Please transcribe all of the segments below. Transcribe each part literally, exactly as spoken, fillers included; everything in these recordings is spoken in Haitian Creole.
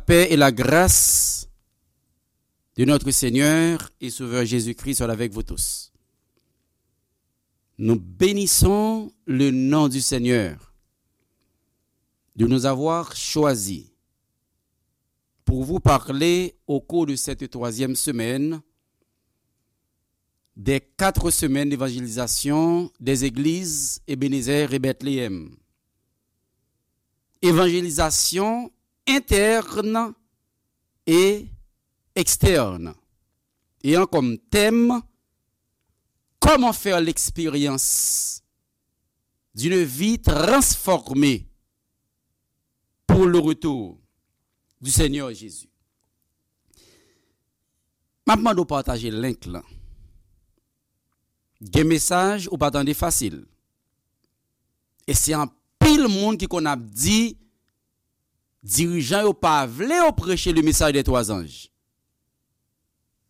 Paix et la grâce de notre Seigneur et Sauveur Jésus-Christ soit avec vous tous. Nous bénissons le nom du Seigneur de nous avoir choisis pour vous parler au cours de cette troisième semaine des quatre semaines d'évangélisation des églises Ebenezer et Bethléem. Évangélisation interne et externe. Ayant comme thème, comment faire l'expérience d'une vie transformée pour le retour du Seigneur Jésus. M ap mande w pataje link lan. Gen mesaj ou pa tande fasil. E se anpil moun ki konn ap di dirijan yo pa vle yo preche le mesaj dè twa zanj.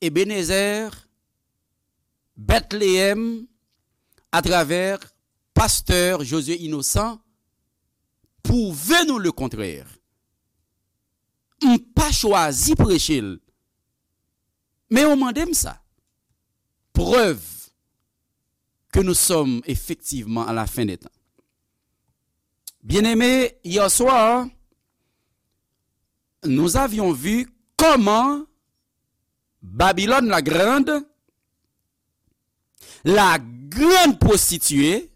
Ebenezer, Bethléem, atravè pastè Josué Innocent, pwouve nou le kontrè. M pa chwazi preche l, men yo mande m sa. Preuve que nous sommes effectivement à la fin des temps. Bien-aimés, hier soir, nous avions vu comment Babylone la Grande, la grande prostituée,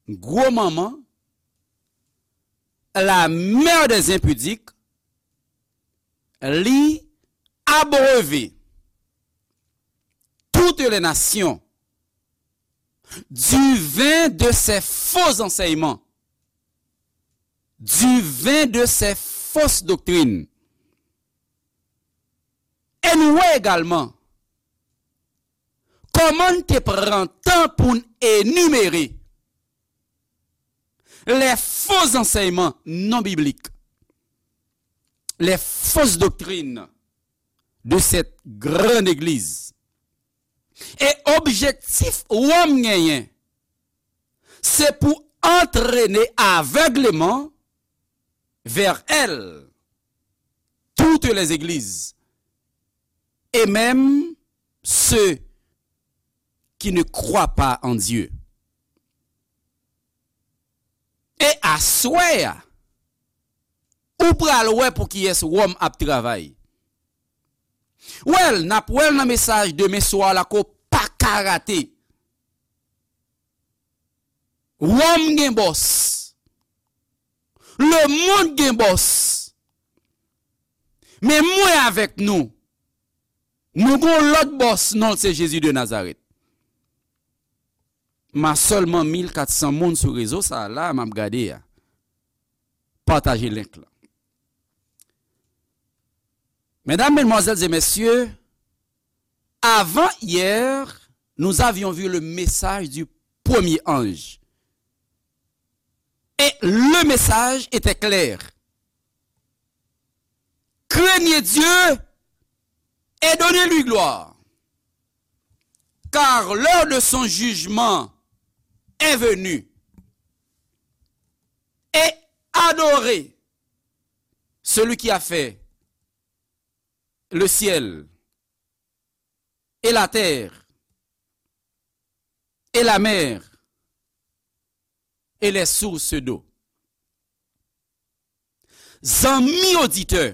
gwo manman, la mère des impudiques, li abreuve toutes les nations du vin de ses faux enseignements, du vin de ses fausses doctrines. E nou wè egalman kòman n te pran tan pou n enimere les faux enseignements non bibliques, les fausses doctrines de cette grande église. E objektif Wòm genyen, se pou antrene avègleman vers elle toutes les églises, et même ceux qui ne croient pas en Dieu. E aswè a, ou pral wè pou kiyès Wòm ap travay. Well, n ap wè l nan mesaj demen swa la ke w pa ka rate. Wòm gen bòs. Lemonn gen bòs. Men mwen avèk nou, nou gon lòt bòs, non l se Jezi de Nazarèt. M a sèlman mil kat san moun sou rezo sa a la, m ap gade a. Pataje link lan. Mesdames, mesdemoiselles et messieurs, avant-hier, nous avions vu le message du premier ange. Et le message était clair. Craignez Dieu et donnez-lui gloire, car l'heure de son jugement est venue. Et adorez celui qui a fait le ciel et la terre et la mer et les sources d'eau. Zanmi oditè,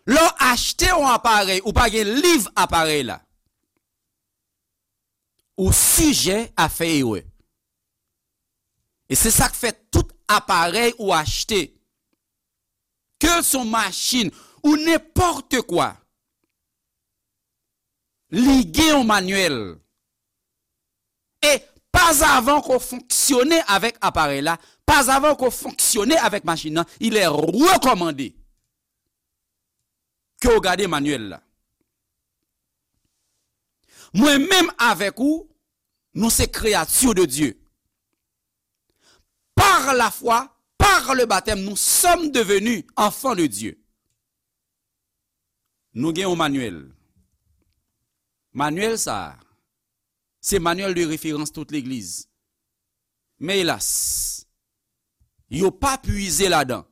lè w achte yon aparèy, ou pa gen liv aparèy la, ou sijè a fè erè. E se sa k fè tout aparèy ou achte, ke l se yon machin ou nenpòt kwa, li gen yon manyèl. E pazavan ke w fonksyone avèk aparèy la, pazavan ke w fonksyone avèk machin nan, il est recommandé ke w gade manyèl la. Mwen menm avèk ou, nou se créatures de Dieu. Par la foi, par le baptême, nous sommes devenus enfants de Dieu. Nou gen yon manyèl. Manyèl sa a, se manuel de référence tout legliz. Men elas, yo pa pwize ladan.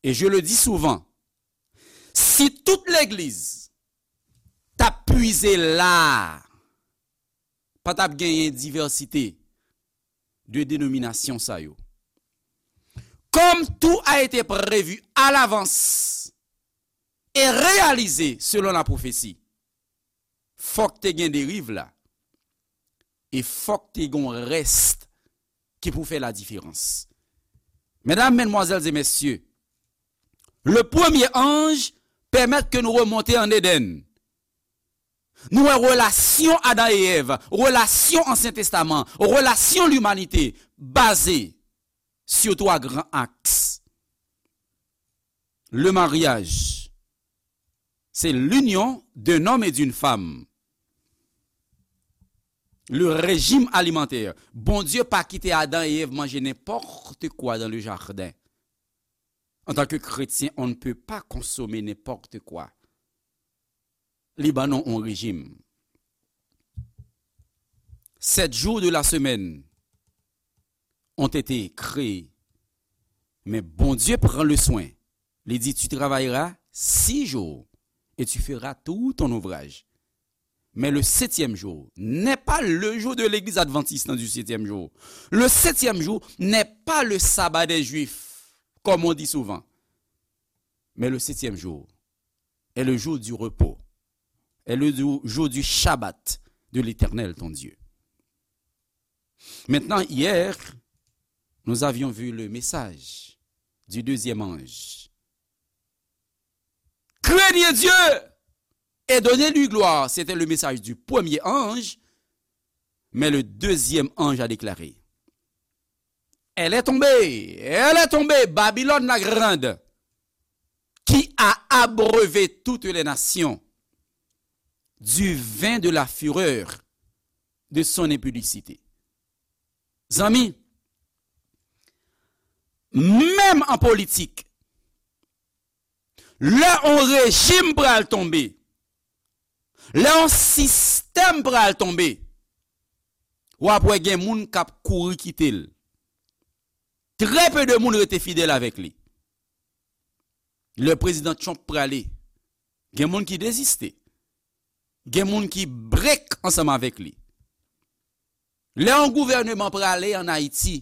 Et je le dis souvent, si tout legliz t ap pwize la, pa t ap genyen divèsite de denominasyon sa yo. Comme tout a été prévu à l'avance et réalisé selon la prophétie, fòk te gen deriv la, e fòk te gen yon rès ki pou fè la diferans. Medam, medmwazèl e mesye, le premye anj pèmèt ke nou remonte an Edenn. Nou wè relasyon Adan e Èv, relasyon Ansyen Testaman, relasyon limanite baze sur trois grands axes. Le mariage, c'est l'union d'un homme et d'une femme. Le régime alimentaire. Bondye pa kite Adan e Èv manje nenpòt kwa dans le jardin. En tant que chrétien, on ne peut pas consommer n'importe quoi. Li ban nou yon rejim. Sept jours de la semaine ont été créés. Mais Bondye pran le soin. Li di, tu travailleras six jours et tu feras tout ton ouvrage. Mais le septième jour n'est pas le jour de l'Église adventiste du septième jour. Le septième jour n'est pas le sabbat des Juifs, comme on dit souvent. Mais le septième jour est le jour du repos, est le jou- jour du Shabbat de l'Éternel, ton Dieu. Maintenant, hier, nous avions vu le message du deuxième ange. Craignez Dieu et donnez-lui gloire. C'était le message du premier ange, mais le deuxième ange a déclaré, elle est tombée, elle est tombée, Babylone la grande, qui a abreuvé toutes les nations du vin de la fureur de son impudicité. Zanmi, menm an politik, lè yon rejim pral tonbe, lè yon sistèm pral tonbe, w ap wè gen moun k ap kouri kite l. Trè pe de moun rete fidèl avèk li. Lè prezidan Trump prale, gen moun ki deziste. Gen moun ki brek ansanm avèk li. Lè yon gouvèneman prale ann Ayiti,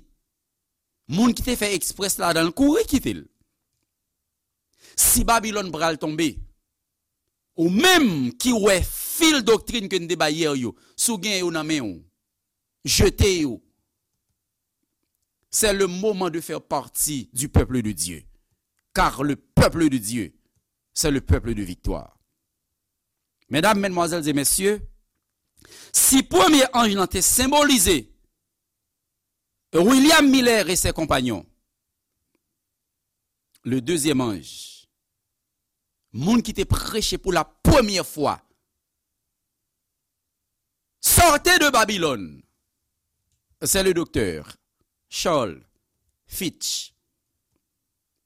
moun ki te fè eksprès ladan l kouri kite l. Si Babilòn pral tonbe, ou menm ki wè fil doktrin ke n te bay yè yo, si w gen yo nan men w, jete yo. C'est le moment de faire partie du peuple de Dieu. Car le peuple de Dieu, c'est le peuple de victoire. Medam, medmwazèl e mesye, si premye anj lan te senbolize William Miller et ses compagnons, le deuxième ange, moun ki te preche pou la premyè fwa, Sortez de Babylone, c'est le docteur Charles Fitch,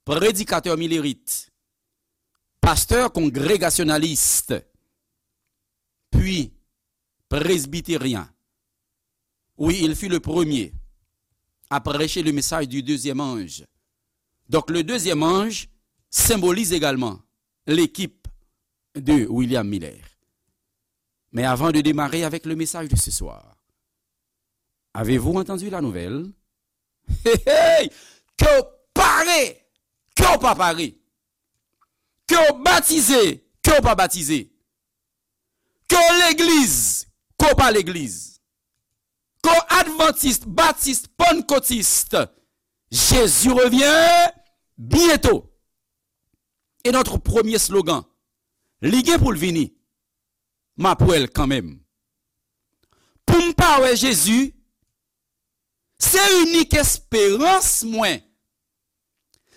prédicateur millérite, pasteur congrégationaliste, puis presbytérien. Oui, il fut le premier à prêcher le message du deuxième ange. Donc le deuxième ange symbolise également l'équipe de William Miller. Mais avant de démarrer avec le message de ce soir, avez-vous entendu la nouvelle? Hey, hey! Ke w pare, ke w pa pare, ke w batize, ke w pa batize, ke w legliz, ke w pa legliz, ke w advantis, batis, pannkotis, Jésus revient bientôt. Et notre premier slogan, li gen pou l vini, m ap wè l kanmenm. Pou m pa wè Jezi, se inik esperans mwen.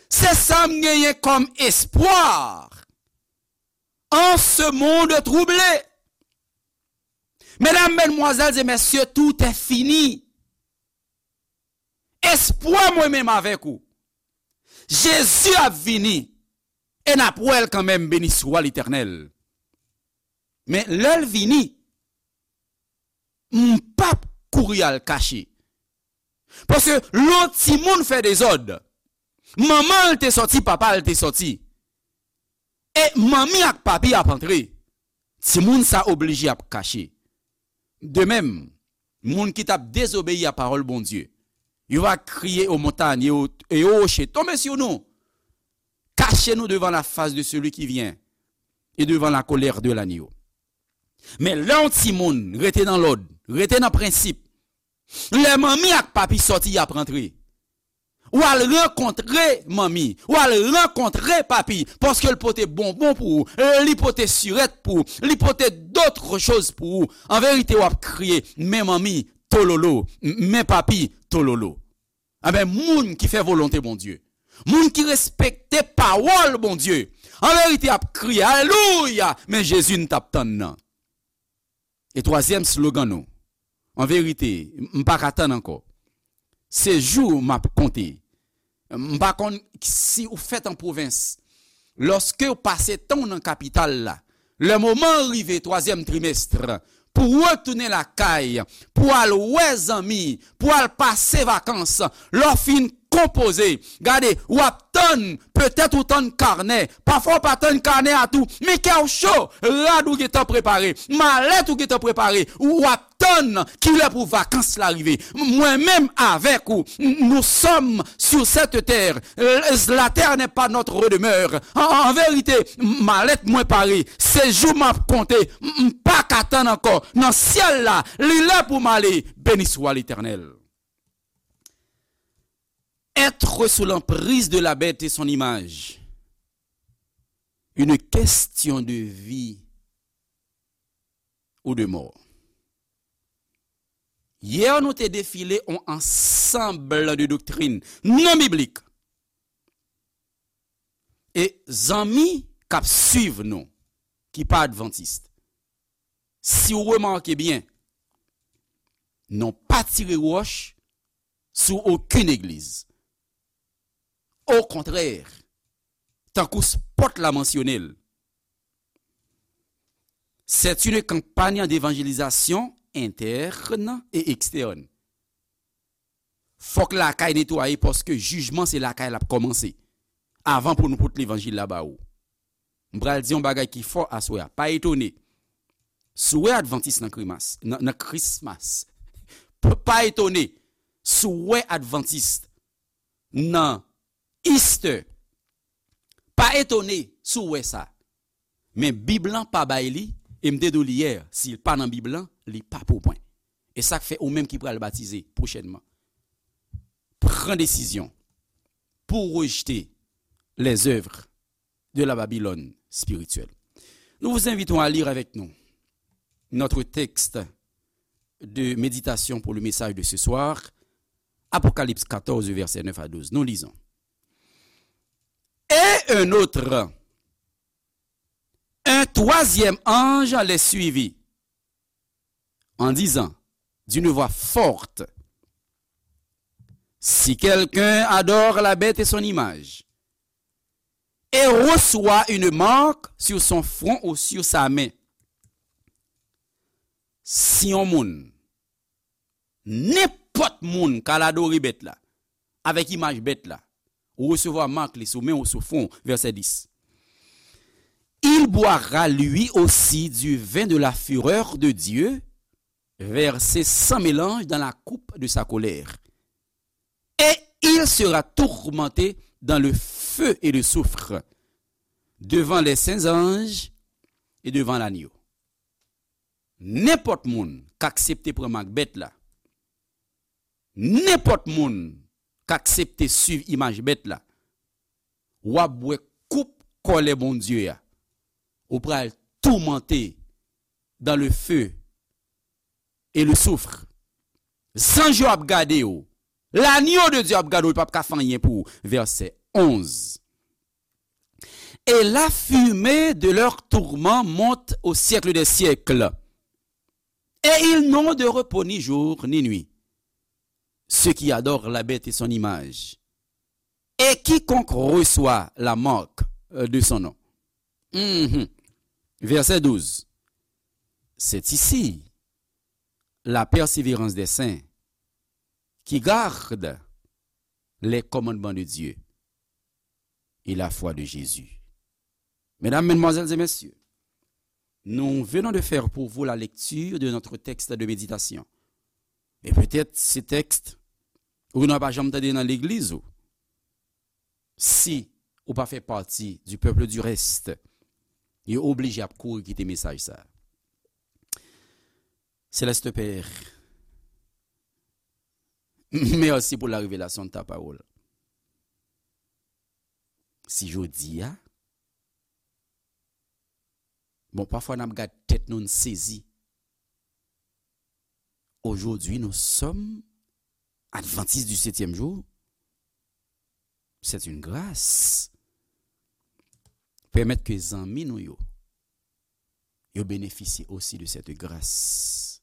Se sa m genyen kòm espwa en ce monde troublé. Medam, medmwazèl e mesye, tout est fini. Espwa mwen menm avèk ou. Jezi ap vini e n ap wè l kanmenm, beni swa Letènèl. Men lè l vini, m p ap kouri al kache. Paske lè yon timoun fè dezòd, Manman l te sòti, papa l te sòti. E manmi ak papi ap antre. Timoun sa oblije ap kache. De menm, moun ki t ap dezobeyi a pawòl Bondye, yo va kriye aux montagnes et aux, et aux rochers, tombez sur nous, cachez-nous devant la face de celui qui vient et devant la colère de l'agneau. Men lè yon timoun rete nan lòd, rete nan prensip, lè manmi ak papi sòti y ap rantre, w al rankontre manmi, w al rankontre papi, paske l pote bonbon pou ou, li pote sirèt pou ou, li pote dòt choz pou ou. An verite, w ap kriye, men manmi, tololo, men papi, tololo. Enben, moun ki fè volonte Bondye, moun ki respekte pawòl Bondye, an verite, ap kriye, alelouya, men Jezi n t ap tann nan. E twazyèm slogan nou, an verite, m pa ka tann ankò. Se jou m ap konte. M pa konn si ou fèt an pwovens. Lòske w pase tan w nan kapital la, lè moman an rive twazyèm trimèst, pou w retounen lakay, pou w al wè zanmi, pou w al pase vakans, lè w fin konpoze, gade, w ap tann, petèt ou tann kanè, pafwa w pa tann kanè a tou, men kè w cho, rad ou gentan prepare, malèt ou gentan prepare, w ap tann kilè pou vakans la rive. Mwen menm avèk ou, nous sommes sur cette terre. La terre n'est pas notre demeure. An, an verite, malèt mwen pare. Se jou m ap konte. M pa ka tann ankò. Nan syèl la, li lè pou m ale. Béni soit l'Éternel. Être sous l'emprise de la bête et son image. Une question de vie ou de mò. Yè, nou te defile yon ansanm de doktrin non biblik. E zanmi k ap swiv nou, ki pa advantis, si w remake byen, nou pa tire wòch sou okenn egliz. Okontrè, tankou spòt la mansyone l, c'est une campagne d'évangélisation interne et externe. Fòk lakay netwaye paske jijman se lakay l ap kòmanse. Avan pou nou pote levanjil la ba ou. M pral di yon bagay ki fò aswè a. Pa etone. Si w wè advantis nan krimas, nan, nan Christmas, p-, pa etone. Si w wè advantis nan Easter, pa etone si w wè sa. Men Bib lan pa bay li, e m te di w li yè, si l pa nan Bib lan, li pa pou mwen. E sa k fè ou menm ki pral batize pwochènman, pran desizyon pou w rejte les œuvres de la Babylone spirituelle. Nous vous invitons à lire avec nous notre texte de méditation pour le message de ce soir, Apocalypse quatorze, versets neuf à douze. Nous lisons. Et un autre, un troisième ange les suivit, en disant d'une voix forte, si quelqu'un adore la bête et son image, et reçoit une marque sur son front ou sur sa main. Si yon moun, nenpòt moun k al adore bèt la, avèk imaj bèt la, ou resevwa mak li sou men ou sou fwon, vèsè dis. Il boira lui aussi du vin de la fureur de Dieu, versé sans mélange dans la coupe de sa colère. Et il sera tourmenté dans le feu et le soufre, devant les saints anges et devant l'agneau. Nenpòt moun k aksepte pran mak bèt la, nenpòt moun k aksepte swiv imaj bèt la, w ap bwè koup kòlè Bondye a. Ou pral toumante dans le feu et le soufre. Zanj yo ap gade w. L'agneau de Dieu ap gade w, li p ap ka fè anyen pou ou. Vèsè onz. Et la fumée de leur tourment monte au siècle des siècles. Et ils n'ont de repos ni jour ni nuit, ceux qui adorent la bête et son image, et quiconque reçoit la marque, euh, de son nom. Mhm. Verset douze. C'est ici la persévérance des saints qui gardent les commandements de Dieu. et la foi de Jésus. Mesdames, Mesdemoiselles et Messieurs, nous venons de faire pour vous la lecture de notre texte de méditation. Et peut-être ce texte, ou nan pa janm tande nan legliz ou. Si ou pa fè pati du peuple du reste, yo oblije ap kouri kite mesaj sa. Céleste Père, merci pour la révélation de ta parole. Si jodi a, bon, pafwa n ap gad tèt nou, n sezi. Aujourd'hui, nous sommes adventistes du septième jour. C'est une grâce. Pèmèt ke zanmi nou yo, yo benefisye osi de cette grâce.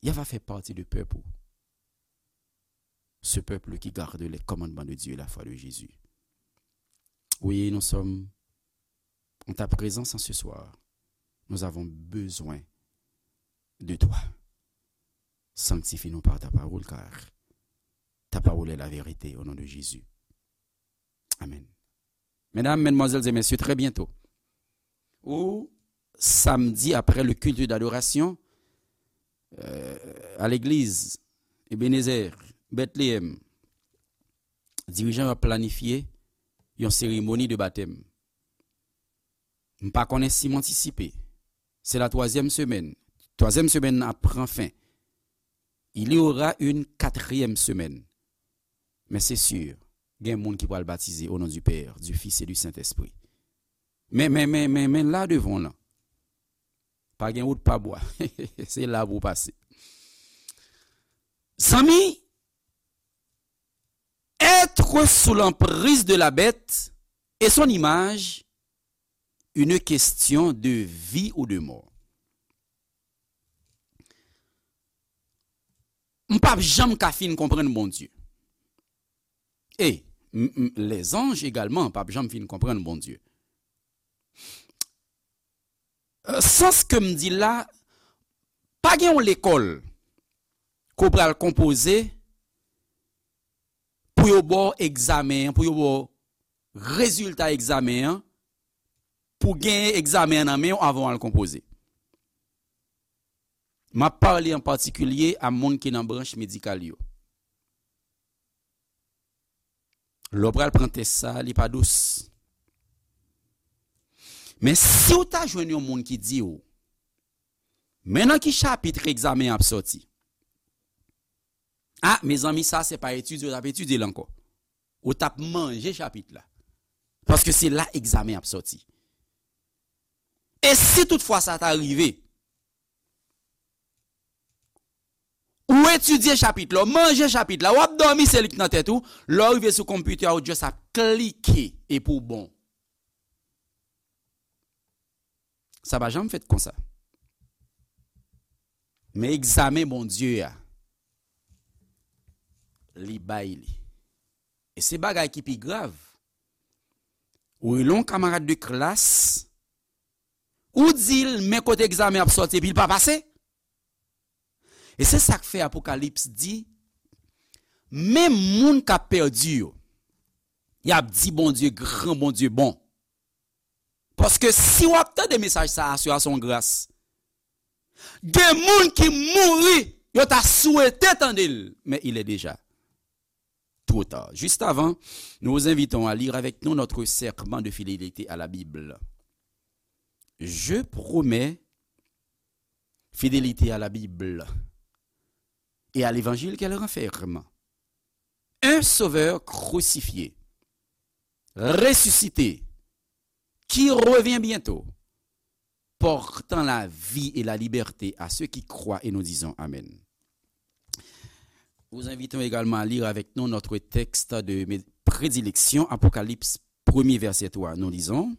Y ava fè pati de pèp ou. Ce peuple qui garde les commandements de Dieu et la foi de Jésus. Oui, nous sommes en ta présence en ce soir. Nous avons besoin de toi. Sanctifie-nous par ta parole, car ta parole est la vérité, au nom de Jésus. Amen. Mesdames, mesdemoiselles et messieurs, très bientôt, ou samedi après le culte d'adoration, euh, à l'église Ebenezer, Bethléem, dirijan yo ap planifye yon seremoni de batèm. M pa konnen si m antisipe. C'est la troisième semaine. Twazyèm semèn nan ap pran fen. Il y aura une quatrième semaine. Men se si, gen moun ki pral batize au nom du Père, du Fils et du Saint-Esprit. Men, men, men, men, men la devan w lan, pa gen wout pa bwa. Se la pou w pase. Zanmi, être sous l'emprise de la bête et son image, une question de vie ou de mort. M p ap janm ka fin konprann Bondye. E m, m, lèzanj egalman p ap janm fin konprann Bondye. Euh, sans ke m di la, pa gen yon lekòl ke w pral konpoze pou yo ba w egzamen an, pou yo ba w rezilta egzamen an, pou w genyen egzamen an nan men w avan w al konpoze. M ap pale an patikilye a moun ki nan branch medikal yo. Lè w pral pran tès sa, li pa dous. Men si w ta jwenn yon moun ki di w, men nan ki chapit egzamen an ap sòti? A, mezanmi, sa se pa etidye w t ap etidye l ankò. Ou t ap manje chapit la. Paske se la egzamen ap sòti. E si toutfwa sa ta rive, ou etidye chapit la, ou manje chapit la, w ap dòmi, se li k nan tèt ou, lè w rive sou konpitè a, ou just ap klike epi w bon. Sa pa janm fèt konsa. Men egzamen Bondye a, li bay li. E se bagay ki pi grav. Ou rele yon kamarad de klas, ou di l men kote egzamen ap sòti epi l pa pase. E se sa k fè Apokalips di, menm moun k ap pèdi yo, y ap di Bondye gran, Bondye bon. Paske si w ap tande mesaj sa a, se yon gras. Gen moun ki mouri, yo ta swete tande l, men il est déjà trop tard. Juste avant, nous vous invitons à lire avec nous notre serment de fidélité à la Bible. Je promets fidélité à la Bible et à l'évangile qu'elle renferme. Un sauveur crucifié, ressuscité, qui revient bientôt, portant la vie et la liberté à ceux qui croient, et nous disons Amen. Nous invitons également à lire avec nous notre texte de mé- prédilection, Apocalypse premier, verset trois. Nous lisons,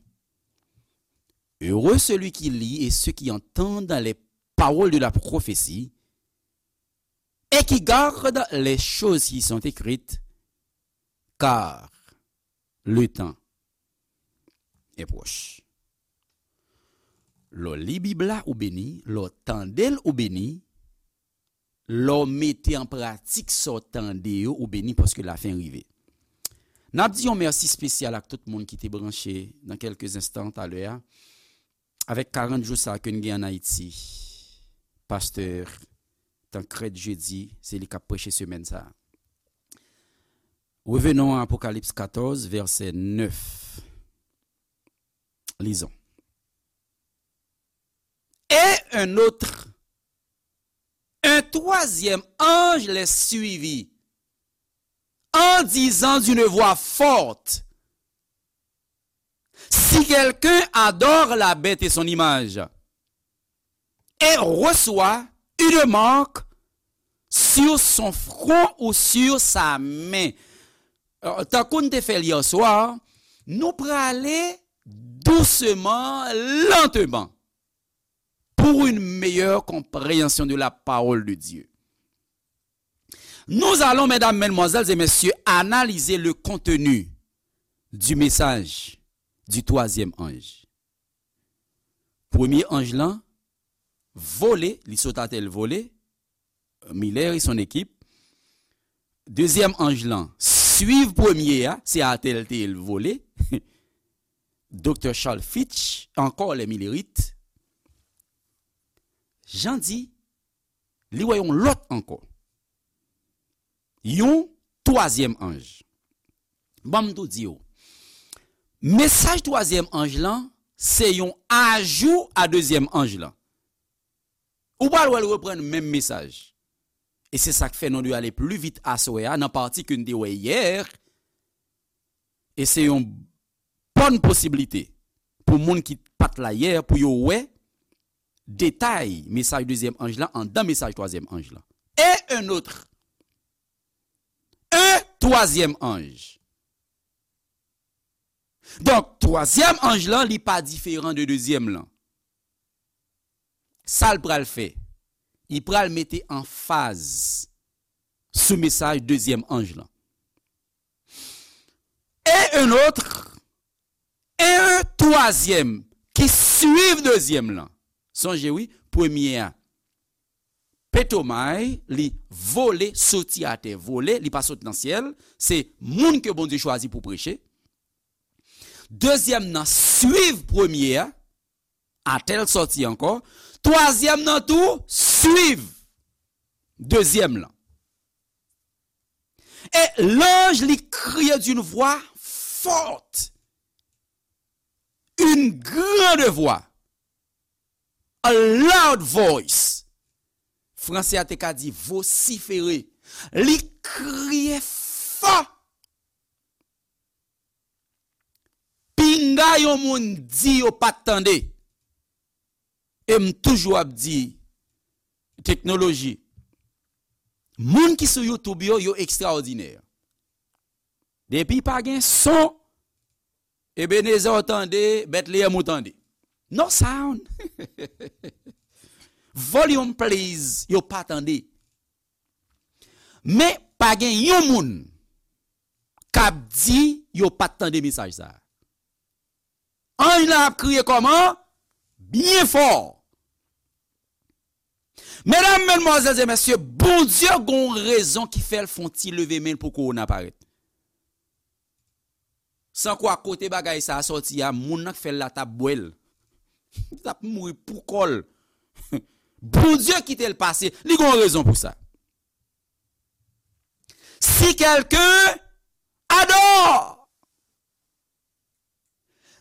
Heureux celui qui lit et ceux qui entendent les paroles de la prophétie et qui gardent les choses qui sont écrites, car le temps est proche. Lè w li Bib la, ou beni. Lè w tande l, ou beni. Lè w mete an pratik sa w tande yo, ou beni, paske lafen rive. N ap di yon mèsi espesyal ak tout moun ki te branche nan kèlke enstan talè a. Avèk karant jou sa ke n gen ann Ayiti, pastè Tancrède Jeudi, se li k ap preche semèn sa a. Revenons à Apocalypse quatorze, verset neuf. Lisons. Et un autre, un troisième ange les suivit, en disant d'une voix forte, si quelqu'un adore la bête et son image, et reçoit une marque sur son front ou sur sa main. Euh, tankou n te fè l yè swa, nou prale dousman, lenteman, pour une meilleure compréhension de la parole de Dieu. Nous allons, mesdames, mesdemoiselles et messieurs, analyser le contenu du message du troisième ange. Premye anj lan vole, li sot atè, l vole. Miller et son équipe. Dezyèm anj lan swiv premye a, se atè l te ye, l vole. Doktè Charles Fitch, encore les Millerites. Jan di, li wè yon lòt ankò. Yon twazyèm anj. Ban m tou di w. Mesaj twazyèm anj lan, se yon ajou a dezyèm anj lan. Ou pral wè l reprann menm mesaj. E se sa k fè nou dwe ale pli vit aswè a nan pati ke n te wè yè. E se yon bòn posiblite pou moun ki pa t la yè pou yo wè detay mesaj dezyèm anj lan anndan mesaj twazyèm anj lan. Et un autre. Un troisième ange. Donk, twazyèm anj lan, li pa diferan de dezyèm lan. Sa l pral fè? Li pral mete anfaz sou mesaj dezyèm anj lan. Et un autre, et un troisième qui suivent dezyèm lan. Sonje wi, premye a, petomay, li vole, soti atè, vole, li pa sot nan syèl, se moun ke Bondye chwazi pou preche. Dezyèm nan swiv premye a, atè l sòti ankò. Twazyèm nan tou swiv dezyèm lan. Et l'ange li kriye d'une voix forte, une grande voix, a loud voice. Fransè a te ka di vosifere. Li kriye fò. Pinga yon moun di yo pa t tande. E m toujou ap di, teknoloji, moun ki sou YouTube yo, yo ekstraòdinè. Depi pa gen son, Ebenezer ou tande, Bethlehem ou tande. No sound. Volume please, yo pa tande. Men pa gen yon moun k ap di yo pa t tande mesaj sa a. Anj lan ap kriye kòman? Byen fò. Medam, medmwazèl e mesye, Bondye gon rezon ki fè l fè yon ti leve men l pou kowona parèt. San kwa kote bagay sa a sòti a, moun nan k fè l la t ap bwè l. Li t ap mouri pou kò l. Bondye kite l pase, li gon rezon pou sa. Si quelqu'un adore,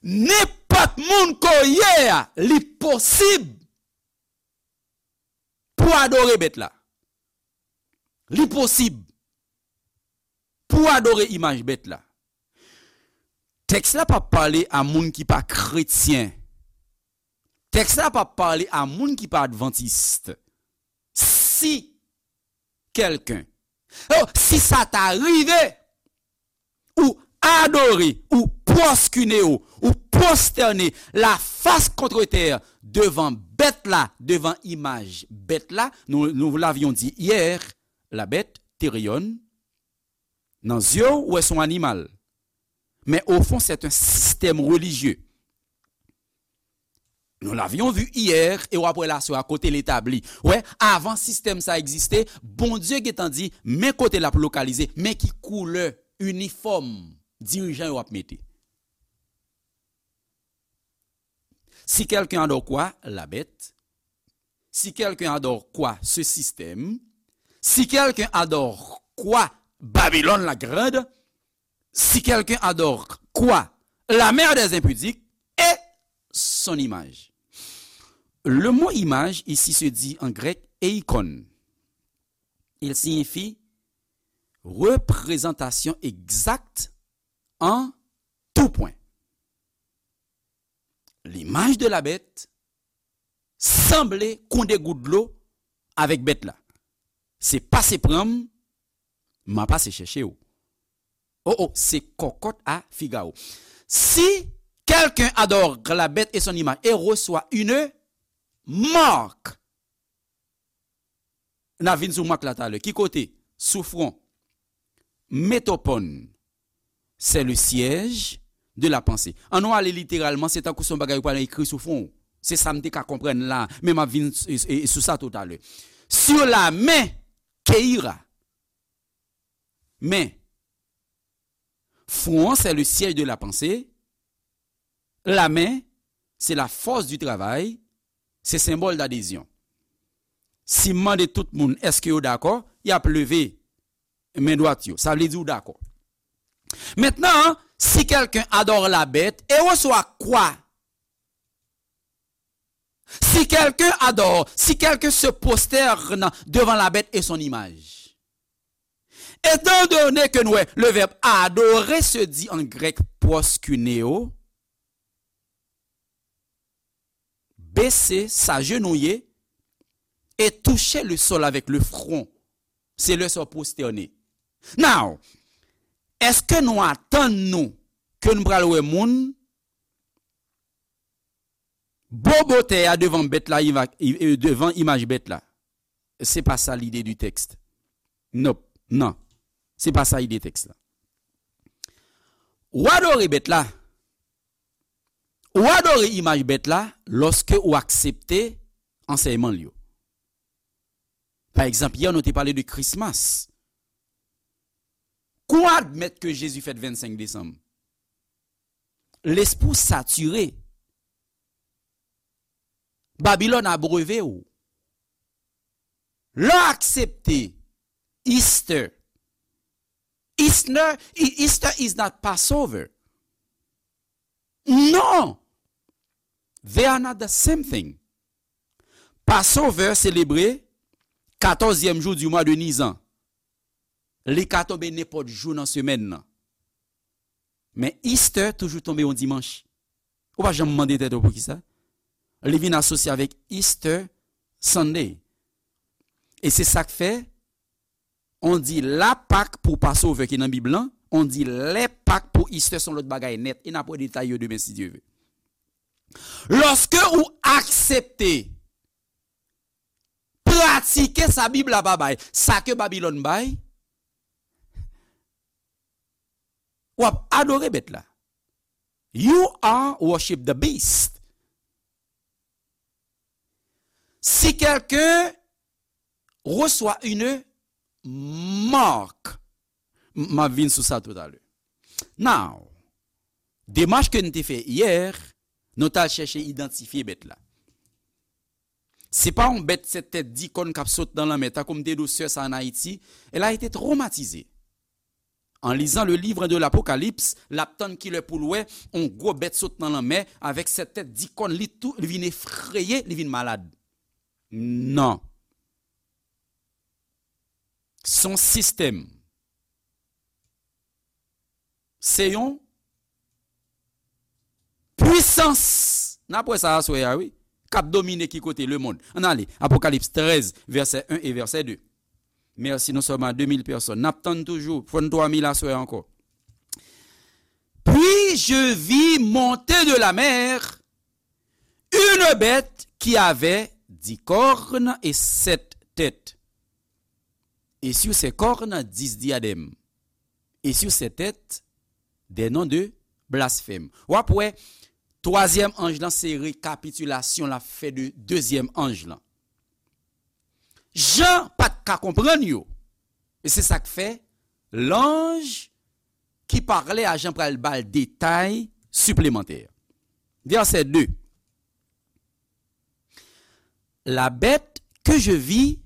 nenpòt moun ke w ye a, li posib pou adore bèt la. Li posib pou adore imaj bèt la. Tèks la p ap pale a moun ki pa kretyen. Tèks la p ap pale a moun ki pa advantis. Si kèlken, oh, si sa ta rive, ou adore, ou pwoskine w, ou pwostène la fas kontre tè devan bèt la, devan imaj bèt la, nou, nou l avyon di yè, la bête, Théréon, nan zye w, ou wè s on animal. Men o fon, c'est un système religieux. Nous l'avions vu hier, e w ap wè l aswè a kote l etabli. Wè, avan sistèm sa egziste, Bondye gentan di, men kote l ap lokalize, men ki koulè inifòm dirijan yo ap mete. Si quelqu'un adore quoi? La bête. Si quelqu'un adore quoi? Ce système. Si quelqu'un adore quoi? Babylone la grande. Si quelqu'un adore quoi? La mère des impudiques et son image. Le mot image ici se dit en grec eikon. Il signifie représentation exacte en tout point. L'image de la bête sanble kon de gout dlo avèk bèt la. Se pase pran m, m a pase chèche w. Oh, oh, c'est cocotte à Figaro. Si quelqu'un adore la bête et son image et reçoit une marque, n a vin sou mak la talè. Ki kote? Sou fwon. Metopon, c'est le siège de la pensée. An nou ale literalman, se tankou se yon bagay ou pral ekri sou fwon w. Se sa m te ka konprann la, men m ap vin s- e- e- sou sa toutalè. Sur la main, keira. Men, fwon an, c'est le siège de la pensée. La main, c'est la force du travail. Se senbòl d'adhésion. Si m mande tout moun, èske yo dakò? Y ap leve men dwat yo. Sa vle di ou dakò. Maintenant, si quelqu'un adore la bête et reçoit quoi? Si quelqu'un adore, si quelqu'un se prosterne devant la bête et son image. Étant donné que nous, le verbe adorer se dit en grec proskuneo, baisser, s'agenouiller et toucher le sol avec le front. Se lè sa w pwostène. Now, èske nou atann nou ke n pral wè moun bobo tè a devan bèt la, iva- i- e, devan imaj bèt la? Se pa sa lide di tèks. Nope. Non. Se pa sa ide tèks la. Ou adore bèt la. Ou adore imaj bèt la lòske ou aksepte ansèyman l yo. Pa egzanp, yè nou te pale de Christmas. Kou w admèt ke Jezi fèt vennsenk desanm, lespri w satire. Babilòn abreve w. Lè w aksepte Easter, Easter, Easter is not Passover. Non! They are not the same thing. Passover selebre katòzyèm jou di mwa de Nizan. Li ka tonbe nenpòt jou nan semèn nan. Men Easter toujou tonbe yon dimanch. Ou pa janm mande tèt ou poukisa? Li vin asosye avèk Easter Sunday. E se sa k fè, on di la Pak pou Passover ki nan Bib lan, on di lè Pak pou Easter se yon lòt bagay nèt. E n ap wè detay yo demen si Dye ve. Lòske ou aksepte pratike sa Bib la pa bay, sa ke Babilòn bay, w ap adore bèt la. You are worship the beast. Si quelqu'un reçoit une marque, m ap vin sou sa toutalè. Now, demach ke n te fè yè, nou t al chèche idantifye bèt la. Se pa yon bèt sèt tèt, dis kòn k ap sot nan lanmè, tankou m te di w sè sa ann Ayiti, elle a été traumatisée. En lisant le livre de l'Apocalypse, l ap tann kilè pou l wè yon gwo bèt sot nan lanmè avèk sèt tèt, dis kòn, li tou, li vin efreye, li vin malad. Non. Se yon sistèm. Se yon pwisans. N ap wè sa aswè a, wi. K ap domine ki kote? Lemonn. Ann ale. Apokalips trèz, vèsè en e vèsè de. Mèsi, nou sèlman de mil pèsòn. N ap tann toujou. Fò n twa mil aswè a ankò. Puis je vis monter de la mer une bête qui avait dix cornes et sept têtes. Et sur ses cornes, dix diadèmes. Et sur ses têtes, des noms de blasphème. W ap wè, twazyèm anj lan se rekapitilasyon l ap fè de dezyèm anj lan. Jan pa t ka konprann yo. E se sa k fè, l'ange ki pa klè a jan pral ba l detay siplemantè. Vèsè de. La bête que je vis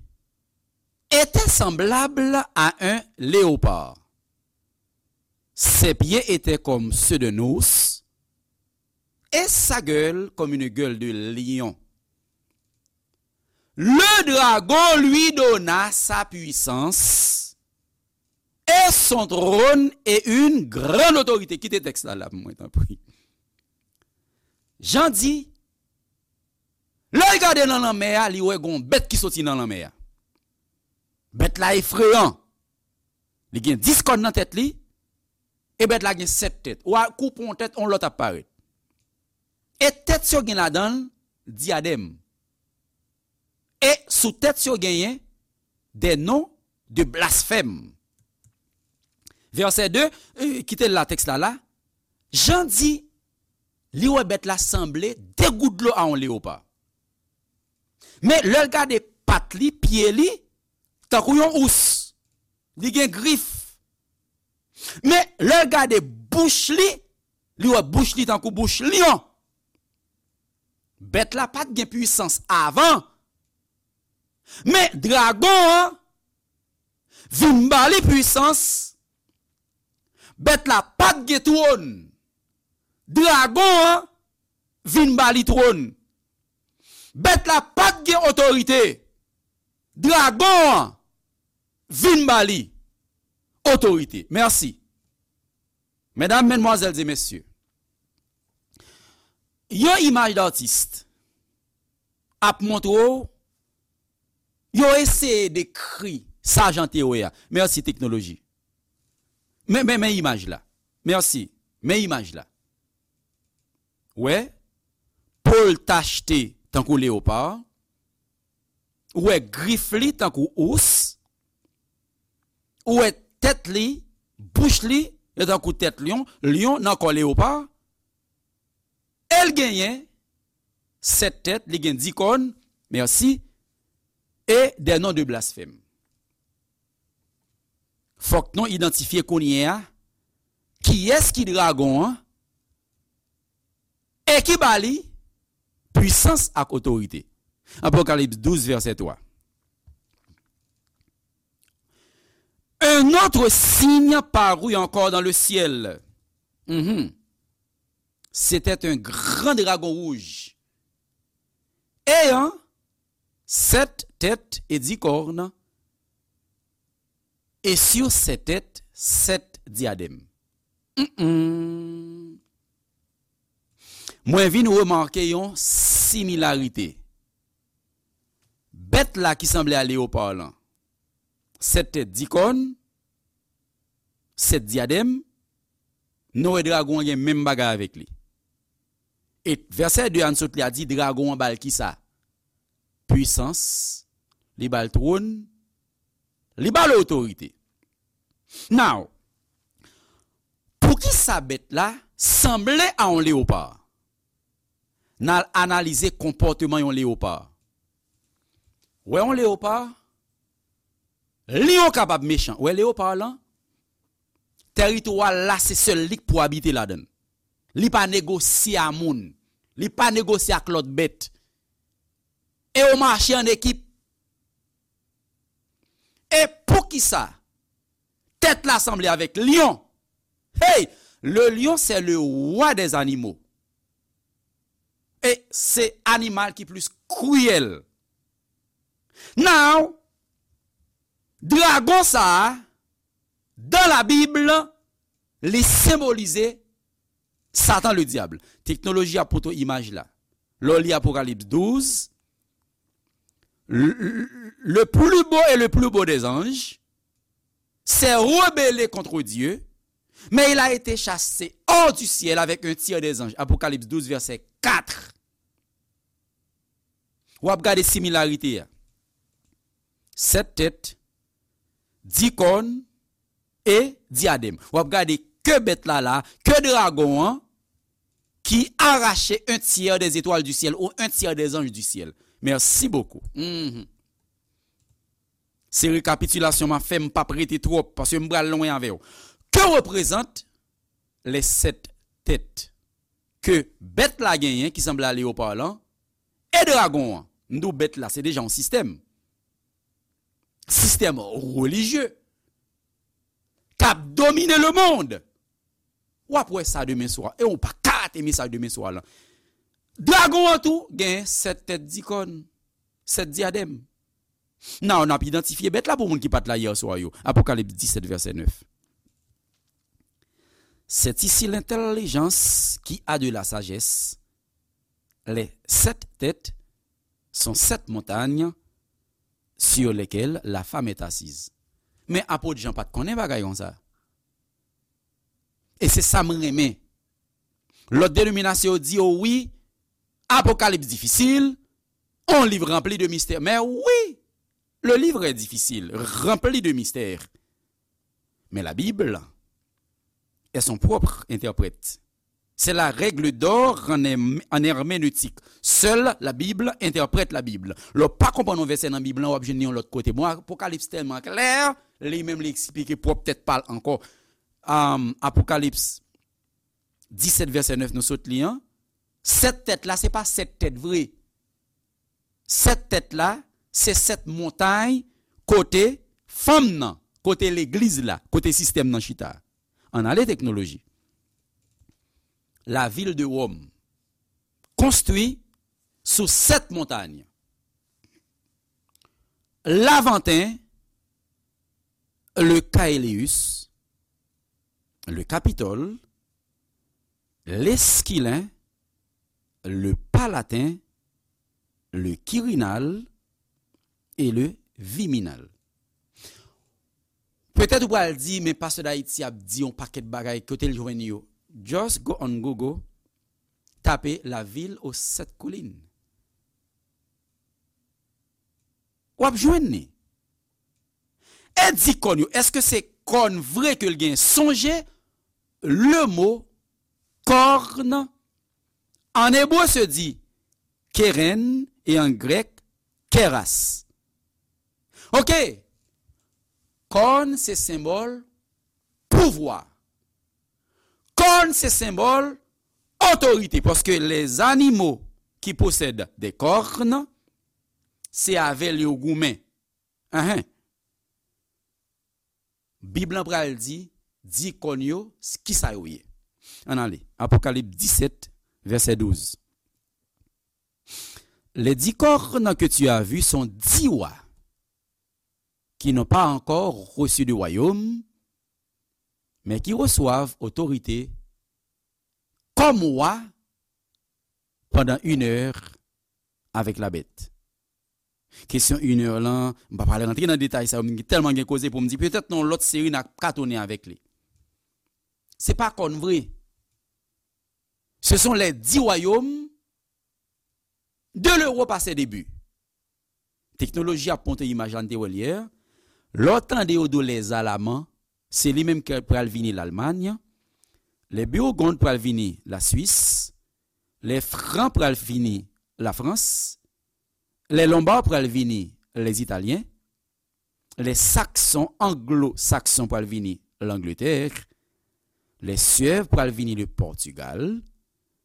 était semblable à un léopard. Ses pieds étaient comme ceux d'un ours, et sa gueule comme une gueule de lion. Le dragon lui donna sa puissance et son trône et une grande autorité. Kite tèks la la pou mwen, tanpri. Jan di, lè l gade nan lanmè a, li wè gon bèt ki soti nan lanmè a. Bèt la efreyan. Li gen dis kòn nan tèt li, e bèt la gen sèt tèt. Ou a koupe yon tèt, yon lòt ap parèt. E tèt yo gen ladan l dyadèm. E sou tèt yo genyen des noms de blasphème. Vèsè de, eh, kite l la, tèks la la. Jan di, li wè bèt la sanble de gout dlo a yon leyopa. Men lè l gade pat li, pye li, tankou yon ous. Li gen grif. Men lè l gade bouch li, li wè bouch li tankou bouch lyon. Bèt la pa t gen pwisans avan. Men dragon an vin ba li pwisans. Bèt la pa t gen twòn. Dragon an vin ba li twòn. Bèt la pa t gen otorite. Dragon an vin ba li otorite. Mèsi. Medam, madmwazèl e mesye, yon imaj datis ap montre w, yo eseye dekri sa jan te wè a. Mèsi, teknoloji. Men, men, men imaj la. Mèsi. Men imaj la. Wè, po l tachte tankou leyopa. Ou wè grif li tankou ous. Ou wè tèt li, bouch li, yo tankou tèt lyon, lyon nan kò leyopa. E l genyen sèt tèt, li gen dis kòn, mèsi, e des noms de blasphème. Fòk nou idantifye kounye a kiyès ki dragon an e ki ba li pwisans ak otorite. Apokalips douz, vèsè twa. Un autre signe parut encore dans le ciel. Mhm. C'était un grand dragon rouge, ayant sept têtes et dix cornes, et sur ses têtes, sept diadèmes. Mm-mm. Mwen vin remake yon similarite. Bèt la ki sanble a leyopa lan, sèt tèt, dis kòn, sèt dyadèm, nou wè dragon an gen menm bagay avèk li. E vèsè de a n sot li a di dragon an ba l kisa? Pwisans, li ba l twòn, li ba l otorite. Now, poukisa bèt la sanble a yon leyopa? N al analize konpòteman yon leyopa. Wè yon leyopa, lyon kapab mechan. Wè leyopa lan, tèritwa l la se sèl li k pou abite ladan l. Li pa negosye a moun. Li pa negosye ak lòt bèt. E yo mache an ekip. E poukisa tèt la sanble avèk lyon? Hey, le lion, c'est le roi des animaux. E se animal ki plis kriyèl. Now, dragon sa a, dans la Bible, li senbolize Satan le diable. Teknoloji ap pote w imaj la. Lè w li Apokalips douz, le, le, le plus beau et le plus beau des anges s'est rebellé contre Dieu, mais il a été chassé hors du ciel avec un tiers des anges. Apocalypse douze, verset quatre. W ap gade similarite a. Sèt tèt, dis kòn e dyadèm. W ap gade ke bèt la la, ke dragon an, qui arrachait un tiers des étoiles du ciel ou un tiers des anges du ciel. Merci beaucoup. Mhm. Se rekapitilasyon m ap fè, m p ap rete twòp, paske m pral lwen avè w. Que représente les sept têtes ke bèt la genyen, ki sanble a leopar lan, e dragon an. M di w bèt la, se deja yon sistèm. Sistèm relijye k ap domine lemonn. W ap wè sa demen swa. E w pa ka rate mesaj demen swa lan. Dragon an tou gen sèt tèt dikòn, sèt dyadèm. Nan, n ap idantifye bèt la pou moun ki pa t la yè swa yo. Apokalips dix-sept, verset neuf. C'est ici l'intelligence qui a de la sagesse. Les sept têtes sont sept montagnes sur lesquelles la femme est assise. Men apot Jan pa t konnen bagay konsa. E se sa m renmen. Lòt denominasyon yo di yo wi, Apokalips difisil, on livre rempli de mystères. Mais oui, le livre est difficile, rempli de mystères. Mais la Bible est son propre interprète. C'est la règle d'or en, herm- en herméneutique. Seule la Bible interprète la Bible. Lè w pa konprann yon vèsè nan Bib lan, w ap jwenn li yon lòt kote. Bon, Apokalips tèlman klè, li menm li eksplike pwòp tèt pa l ankò. Um, Apokalips disèt vèsè nèf nou sot li an, sèt tèt la, se pa sèt tèt vre. Sèt tèt la, se sèt montay kote fanm nan, kote legliz la, kote sistèm nan chita. Ann ale teknoloji. La ville de Rome, construit sous sept montagnes. Lavanten, le Caelius, le Capitole, l'Esquilin, le Palatin, le Quirinal et le Viminal. Petèt ou pral di, men pastè Dayiti ap di yon pakèt bagay, kote l jwenn yo? Just go on Google, tape la ville aux sept collines. W ap jwenn li. E di kòn yo, èske se kòn vre ke l gen? Sonje, le mo corne en hébreu se dit keren e an grèk keras. Ok. Kòn se senbòl pouvwa. Kòn se senbòl otorite, paske les animaux qui possèdent des cornes, se avè l yo goumen. Ahen. Bib lan pral di, di kòn yo, s- kisa yo ye. Ann ale. Apokalips disèt, vèsè douz. Les dix cornes que tu as vues sont dix rois qui n'ont pas encore reçu de royaume, mais qui reçoivent autorité comme roi pendant une heure avec la bête. Kesyon inè lan, m pa pral rantre nan detay sa yo, m tèlman gen koze pou m di, petèt nan yon lòt seri n a ka tounen avèk li. Se pa kòn vre. Ce sont les dix royaumes de l'Europe à ses débuts. Teknoloji ap monte imaj la n te wè l yè. Lè w tande yo di w les Alamans, se li menm ki pral vini Lalmany. Les Burgondes pral vini Laswis. Les Francs pral vini Lafrans. Les Lombards pral vini Lezitalyen. Les Saxons, Anglo-Sakson pral vini Langletè. Les Suèves pral vini le Portugal.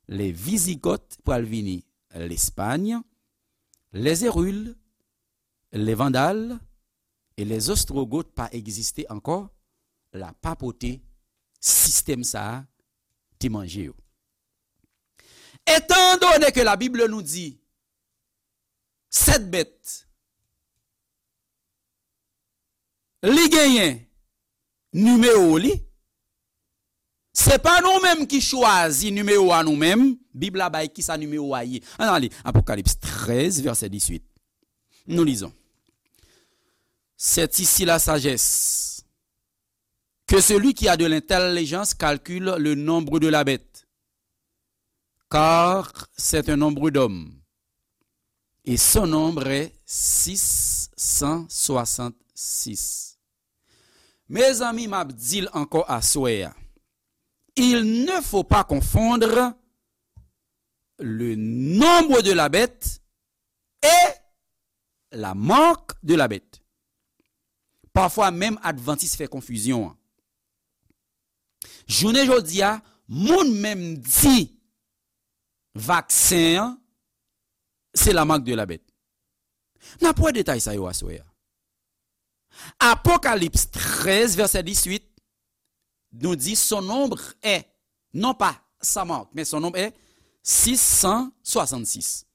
Les Visigoths pral vini Lespay. Les Hérules, les Vandales et les Ostrogoths pa egziste ankò. La papòte sistèm sa a te manje yo. Étant donné que la Bible nous dit sèt bèt, li genyen nimewo li. Se pa nou menm ki chwazi nimewo a nou menm. Bib la bay kisa nimewo a ye. Ann ale, Apokalips trèz, vèsè dizuit. Nous lisons. C'est ici la sagesse. Que celui qui a de l'intelligence calcule le nombre de la bête, car c'est un nombre d'hommes, et son nombre est six cent soixante-six. Mezanmi, m ap di l ankò aswè a. Il ne faut pas confondre le nombre de la bête et la marque de la bête. Pafwa, menm advantis fè konfizyon an. Jounen jodi a, moun menm di vaksen an, se la marque de la bête. N ap wè detay sa yo aswè a. Apocalypse treize, verset dix-huit, nous dit son nombre est, non pas sa marque, mais son nombre est six cent soixante-six.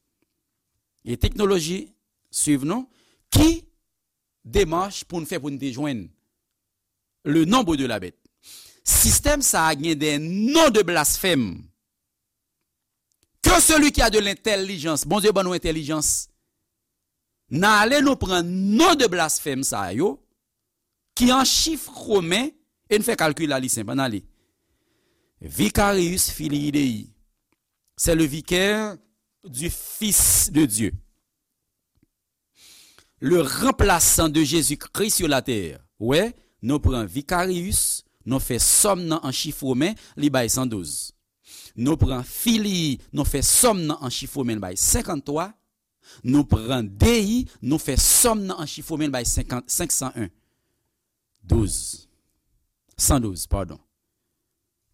E teknoloji swiv nou, ki demach pou n fè pou n te jwenn le nombre de la bête. Sistèm sa a gen de non de blasfèm. Que celui qui a de l'intelligence, Bondye ban nou entèlijans. N ale nou pran non de blasfèm sa yo, ki an chif romen, e n fè kalkil la li senp, ann ale. Vicarius filii Dei, c'est le vicaire du Fils de Dieu. Le remplaçant de Jésus-Christ sur la terre. Wè, nou pran Vicarius, nou fè sòm nan an chif romen, li bay san douz. Nou pran filii, nou fè sòm nan an chif romen, li bay senkanntwa. Nou pran Dei, nou fè sòm nan an chif romen, li bay senkant, senk san en. Douz. San douz, padon.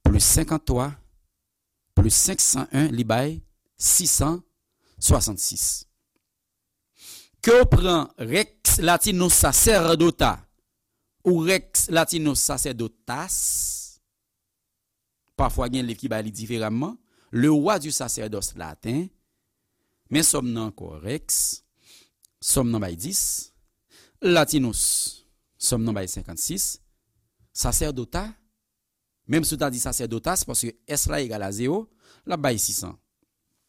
Plis senkanntwa, plis senk san en, li bay sis san swasannsis. Ke w pran Rex Latinus Sacerdota ou Rex Latinus Sacerdotas, pafwa gen liv ki bay li diferaman, Le Roi du Sacerdoce latin, men sòm nan ankò, Rex, sòm nan bay dis, Latinus, sòm nan bay senkannsis, Sacerdota, menm si w ta di Sacerdotas, paske S la egal a zewo, l ap bay sis san.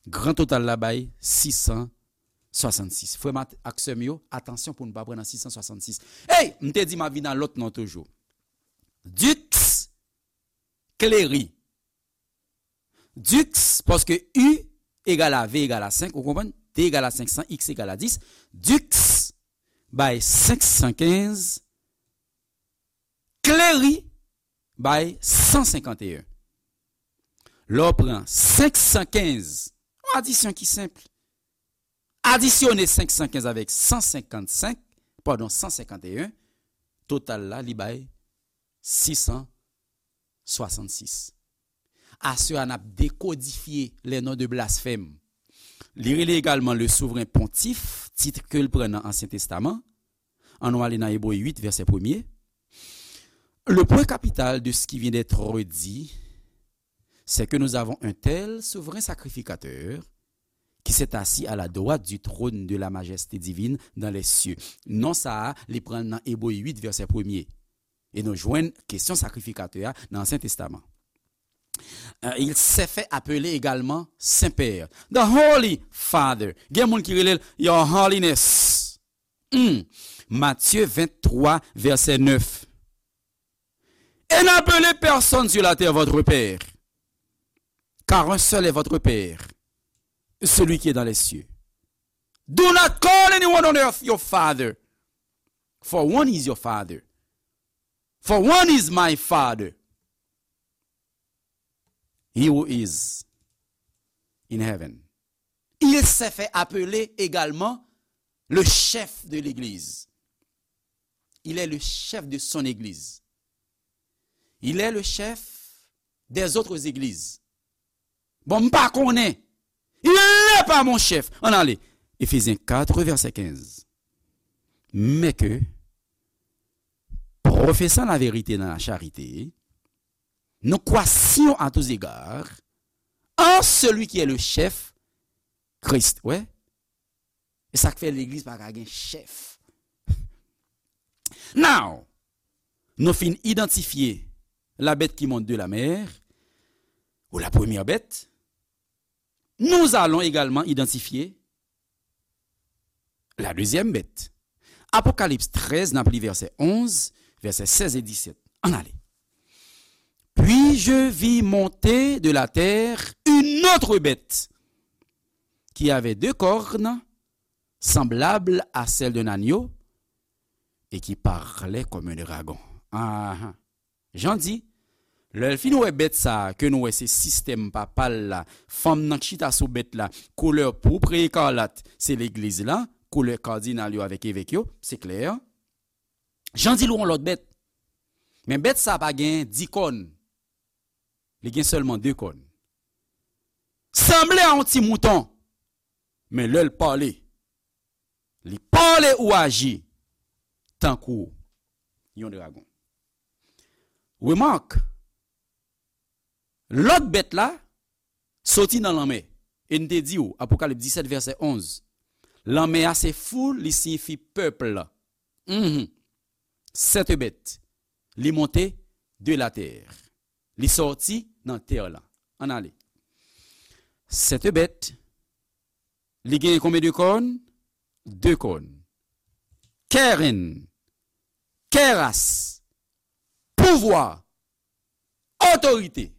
Gran total la bay sis san swasannsis. Frè m ak sè m yo, atansyon pou n pa pran nan sis san swasannsis. Ey, m te di m ap vin a lòt non toujou. Dux Cleri. Dux, paske U egal a V egal a senk, ou konprann? T egal a senk san, X egal a dis. Dux bay senk san kenz, Cleri bay san senkanteyen. Lè w pran senk san kenz, yon adisyon ki senp. Adisyone senk san kenz avèk san senkannsenk, padon, san senkanteyen, total la, li bay sis san swasannsis. Aswè a, n ap dekodifye les noms de blasphème. Li rele egalman le souverain pontife, tit ke l pran nan Ansyen Testaman. Ann nou ale nan Ebre uit, vèsè premye. Le point capital de ce qui vient d'être dit, c'est que nous avons un tel souverain sacrificateur qui s'est assis à la droite du trône de la majesté divine dans les cieux. Non sa a, li pran nan Ebre uit, vèsè premye. E nou jwenn kesyon sakrifikatè a nan Ansyen Testaman. Euh, il s'est fait appeler également Saint-Père. The Holy Father. Gen moun ki rele l Your Holiness. Hmm. Matye venntwa, vèsè nèf. Et n'appelez personne sur la terre votre père, car un seul est votre Père, celui qui est dans les cieux. Do not call anyone on earth your father, for one is your Father. For one is my Father, he who is in heaven. Il s'est fait appeler également le chef de l'Église. Il est le chef de son Église. Il est le chef des autres églises. Bon, m pa konnen. Il n'est pas mon chef. Ann ale. Éphésiens quatre, verset quinze. Mais que, professant la vérité dans la charité, nous croissions à tous égards en celui qui est le chef, Christ. Wè? E sa k fè legliz pa ka gen chèf. Now, nou fin idantifye la bête qui monte de la mer, ou la première bête. Nous allons également identifier la deuxième bête. Apokalips trèz, n ap li vèsè onz, vèsè sèz e disèt. Ann ale. Puis je vis monter de la terre une autre bête qui avait deux cornes, semblables à celles d'un agneau, et qui parlait comme un dragon. Ah, ah. Jan di, lè l fin wè bèt sa a, ke nou wè se sistèm papa l la, fanm nan k chita sou bèt la, koulè pourpre ekarlat, se legliz la, koulè kadinal yo avèk evèk yo, se klè. Jan di l wè yon lòt bèt. Men bèt sa a pa gen dis kòn. Li gen sèlman de kòn. Sanble a yon ti mouton, men lè l pale, li pale ou aji tankou yon dragon. Remak, lòt bèt la soti nan lanmè. E n te di w, Apokalips disèt vèsè onz, lanmè a se foul, li siyifi pèp la. Mhm. Cette bête, li monte de la terre. Li sòti nan tè la. Ann ale. Cette bête, li genyen konbyen de kòn? De kòn. Keren, keras, pouvwa, otorite.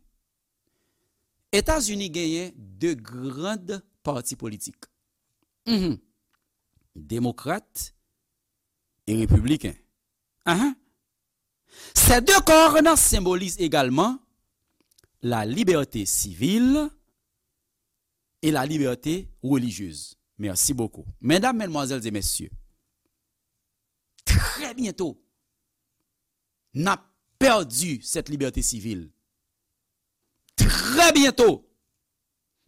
Etazini genyen de grand pati politik. Mhm. Demokrat e repibliken. Ahan. Ces deux cornes symbolisent également la liberté civile et la liberté religieuse. Merci beaucoup. Mesdames, mesdemoiselles et messieurs, très bientôt, n ap pèdi cette liberté civile. Très bientôt,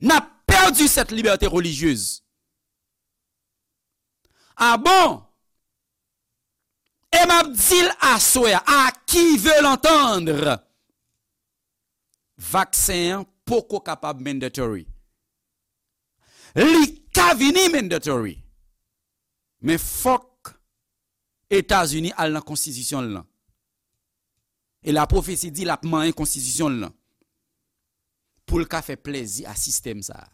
n ap pèdi cette liberté religieuse. Ah bon? E m ap di l aswè a, à qui veut l'entendre? Vaksen an poko kapab mandatory. Li ka vini mandatory. Men fòk Etazini al nan konstitisyon l lan. E lapwofesi di l ap manyen konstitisyon l lan. Pou l ka fè plèzi a sistèm sa a.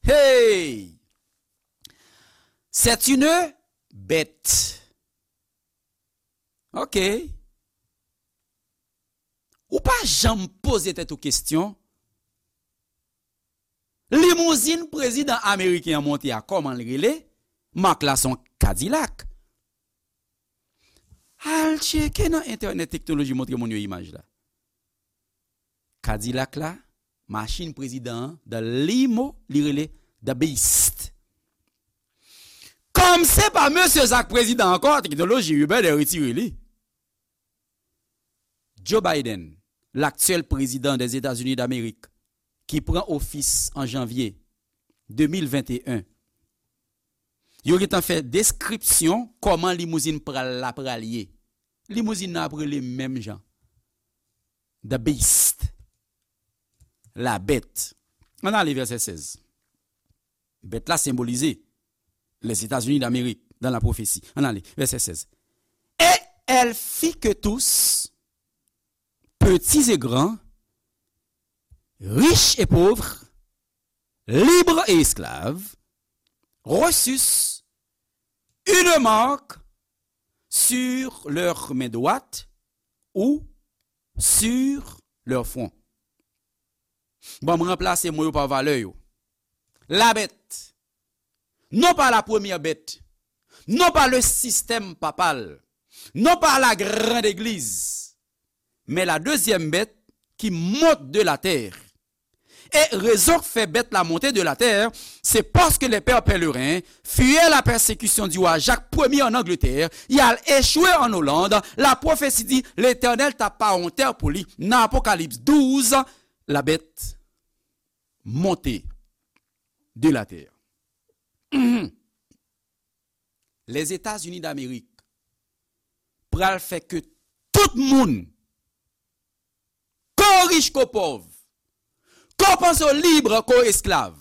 Hey! C'est une bête. Ok. Ou pa janm poze tèt ou kesyon. Limouzin prezidan ameriken an monte a, kòman l rele? Mak la se yon Kadilak. Al tcheke nan entènèt, teknoloji montre moun yo imaj la. Kadilak la, machin prezidan an, the limo, li rele the beast. Kòm se pa mesye sa k prezidan ankò, teknoloji Uber dè retire li. Joe Biden, l'actuel président des États-Unis d'Amérique, ki pran ofis an janvye de mil venteyen, yo gentan fè deskripsyon kòman limouzin pral la pral ye. Limouzin nan ap rele menm jan. The Beast. La bête. Ann ale vèsè sèz. Bèt la senbolize les États-Unis d'Amérique dans la prophétie. Ann ale, vèsè sèz. Et elle fit que tous, petits et grands, riches et pauvres, libres et esclaves, reçussent une marque sur leur main droite ou sur leur front. Bon, m ranplase mo yo pa valè yo. La bête, non pas la première bête, non pas le système papal, non pas la grande église, mais la deuxième bête qui monte de la terre. Et raison fait bête la montée de la terre, c'est parce que les pères pèlerins fuyaient la persécution du roi Jacques premier en Angleterre, y al échoué en Hollande, la prophétie dit, l'Éternel tapa yon tè pou li. Nan Apokalips douz, la bête monte de la terre. Mhm. Les États-Unis d'Amérique pral fè ke tout moun, ko rich ko pòv, ko panse w lib ko esklav,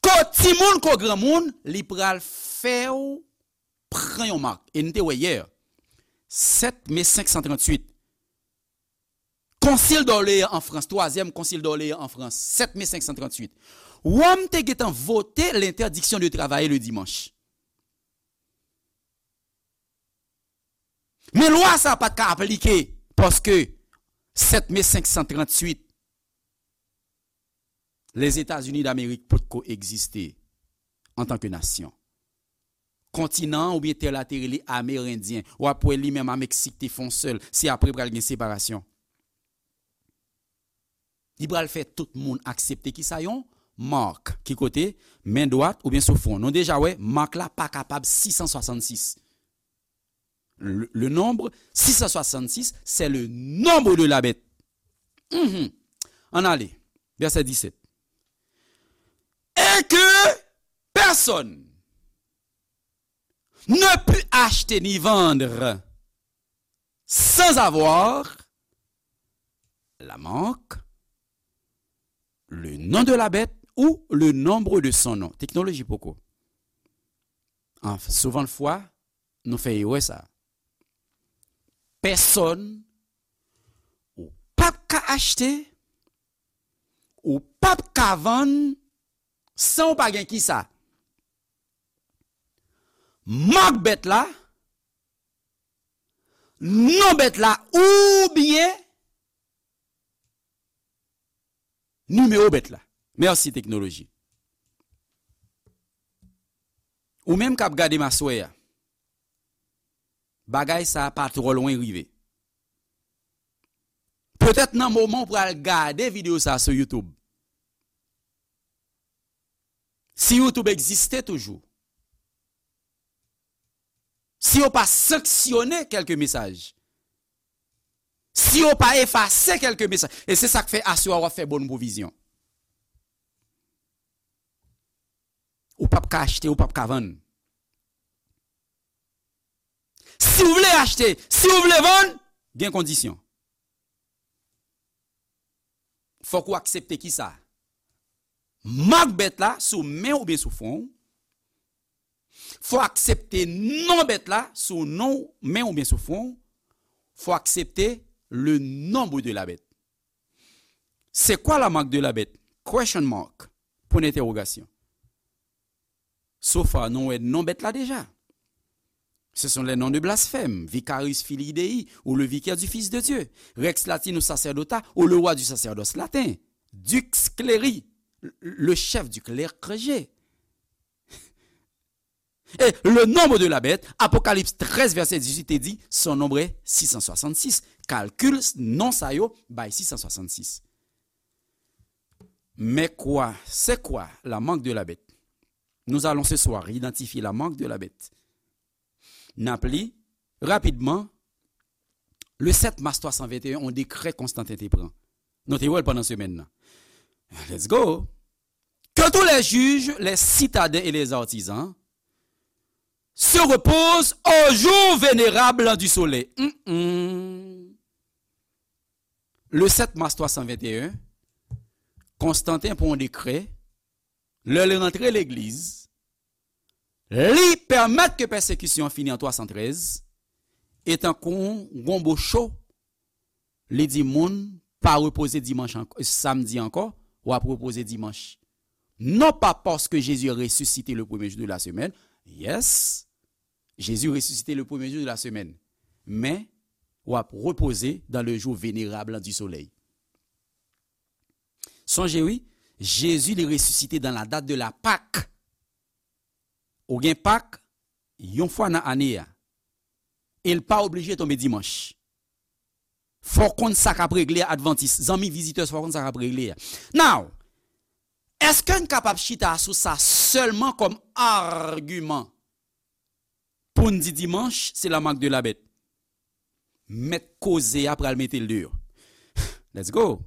ko timoun ko granmoun, li pral fè w pran yon mak. E n te wè yè, sèt me senk san tranntuit, Konsil d'Orléans an Frans, twazyèm Konsil d'Orléans an Frans, sèt me senk san tranntuit. Wòm te gentan vote l'interdiction de travailler le dimanche. Men lwa sa pa t ka aplike paske sèt me senk san tranntuit, Lèzetazini Damerik potko egziste antanke nasyon. Kontinan an oubyen tè la te rele Amerendyen. W ap wè li menm a Meksik te fè yon sèl. Se apre pral gen separasyon. Li pral fè tout moun aksepte kisa yon mark. Ki kote? Men dwat oubyen sou fwon. Nou deja wè, mark la pa kapab sis san swasannsis. Le, le nombre six cent soixante-six, c'est le nombre de la bête. Mhm. Ann ale. Vèsè disèt. Et que personne ne put acheter ni vendre sans avoir la marque, le nom de la bête ou le nombre de son nom. Teknoloji poko. An, souvan fwa, nou fè erè sa. Pèsòn, ou p ap ka achte, ou p ap ka vann, san ou pa gen kisa? Mak bèt la, non bèt la, oubyen nimewo bèt la. Mèsi, teknoloji. Ou menm k ap gade m aswè a, bagay sa a pa twò lwen rive. Petèt nan moman w pral gade videyo sa a sou YouTube. Si YouTube egziste toujou, si yo pa sanksyone kèlke mesaj, si yo pa efase kèlke mesaj, e se sa k fè aswè a w ap fè bon pwovizyon. Ou p ap ka achte, ou p ap ka vann. Si w vle achte, si w vle vann, gen kondisyon. Fòk ou aksepte kisa? Mak bèt la sou men w oubyen sou fwon w. Fò w aksepte non bèt la sou non w, men w oubyen sou fwon w. Fò w aksepte le nombre de la bête. C'est quoi la marque de la bête? Question mark. Point d'interrogation. So far, nou wè non bèt la deja. Ce sont les noms de blasphème, Vicarius Filii Dei, ou le vicaire du Fils de Dieu, Rex Latinus Sacerdota, ou le roi du sacerdoce latin, Dux Cleri, le chef du clergé. Et le nombre de la bête, Apocalypse treize, verset dix-huit, te di, son nombre est six cent soixante-six. Kalkil non sa yo bay six cent soixante-six. Mais quoi, c'est quoi la marque de la bête? Nous allons ce soir identifier la marque de la bête. N ap li rapidman, le sept mars trois cent vingt et un, yon dekrè Konstanten te pran. Nou te wè l pandan semèn nan. Let's go. Que tous les juges, les citadins et les artisans se reposent au jour vénérable du soleil. Mm, mm. Le sept mars trois cent vingt et un, Konstanten pran yon dekrè, lè l rantre legliz, li pèmèt ke pèsekisyon an fini an twa san trèz, e tankou yon gonbo cho, li di moun pa repoze dimanch ank-, samdi ankò, w ap repoze dimanch. Non pas parce que Jésus est ressuscité le premier jour de la semaine, yes, Jésus ressuscité le premier jour de la semaine, men w ap repoze dans le jour vénérable du soleil. Sonje wi, Jezi li resisite dans la date de la Pâque. Ou gen Pak yon fwa nan ane a. E l pa oblije tonbe dimanch. Fò w konn sa k ap regle a, Advantis. Zanmi vizitè, fò w konn sa k ap regle a. Now, èske n kapab chita sou sa sèlman kòm agiman pou n di dimanch se la marque de la bête? Mèt koze a pral mete l deyò. Let's go.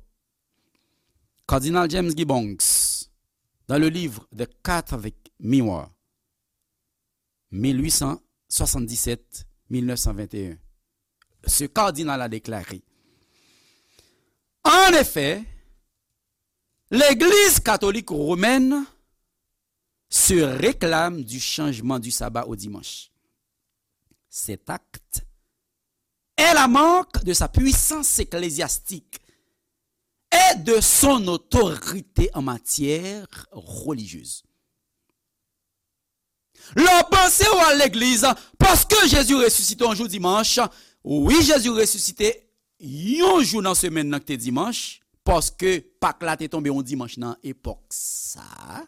Cardinal James Gibbons, dans le livre The Catholic Mirror, mil huit cent soixante-dix-sept, mil neuf cent vingt et un, ce cardinal a déclaré: En effet, l'Église catholique romaine se réclame du changement du sabbat au dimanche. Cet acte est la marque de sa puissance ecclésiastique et de son autorité en matière religieuse. Lè w panse w al legliz, paske Jezi resisite yon jou dimanch, wi, Jezi resisite yon jou nan semèn nan ki te dimanch, paske Pak la te tonbe yon dimanch nan epòk sa a.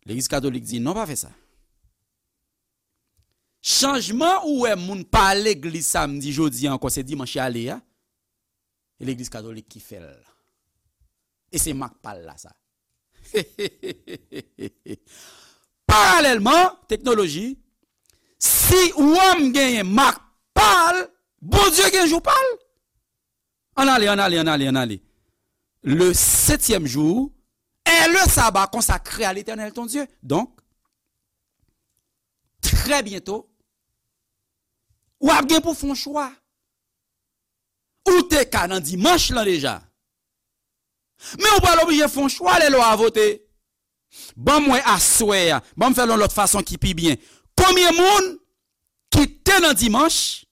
Legliz katolik di, non, pa fè sa. Chanjman ou wè moun pa al legliz samdi jodi a ankò, se dimanch y ale a, e legliz katolik ki fè l. E se mak pa l la sa. Paralèlman, teknoloji, si Wòm genyen mak pa l, Bondye gen jou pa l. Ann ale, ann ale, ann ale, ann ale. Le septième jour est le sabbat consacré à l'Éternel ton Dieu. Donk, trè byento, w ap gen pou fè yon chwa. Ou te ka nan dimanch lan deja. Men ou pral oblije fè yon chwa lè lwa a vote. Ban m wè aswè a, ban m fè l yon lòt fason ki pi byen. Konbyen moun ki te nan dimanch,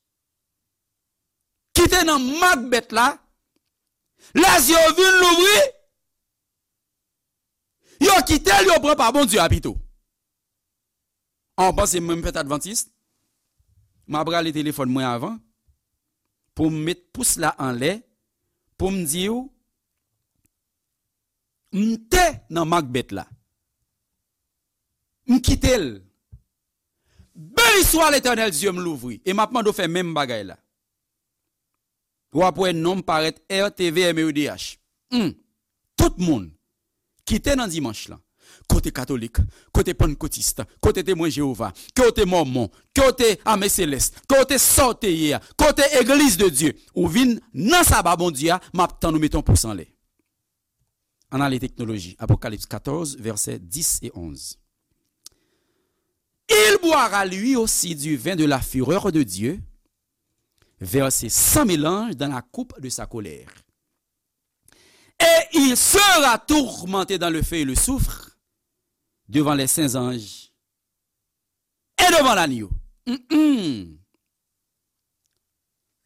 ki te nan mak bèt la, lè zye yo vin louvri, yo kite l, yo pran pa Bondye a pito. An, w panse mwen m fèt advantis? M ap rale telefòn mwen avan pou m met pous la anlè, pou m di w, m te nan mak bèt la. M kite l. Beni swa Letènèl, zye m louvri. E m ap mande w fè menm bagay la. W ap wè non m parèt R T V M E D H. Hmm. Tout moun ki te nan dimanch lan, ke w te katolik, ke w te pannkotis, ke w te temwen Jewova, ke w te mòmon, ke w te ame selès, ke w te sa w te ye a, ke w te egliz de Dye, ou vin nan saba Bondye a, m ap tann ou mete yon pous anlè. Ann ale teknoloji. Apokalips katòz, vèsè dis e onz. Il boira lui aussi du vin de la fureur de Dieu, versé sans mélange dans la coupe de sa colère. Et il sera tourmenté dans le feu et le soufre, devant les saints anges et devant l'agneau. Mm-mm.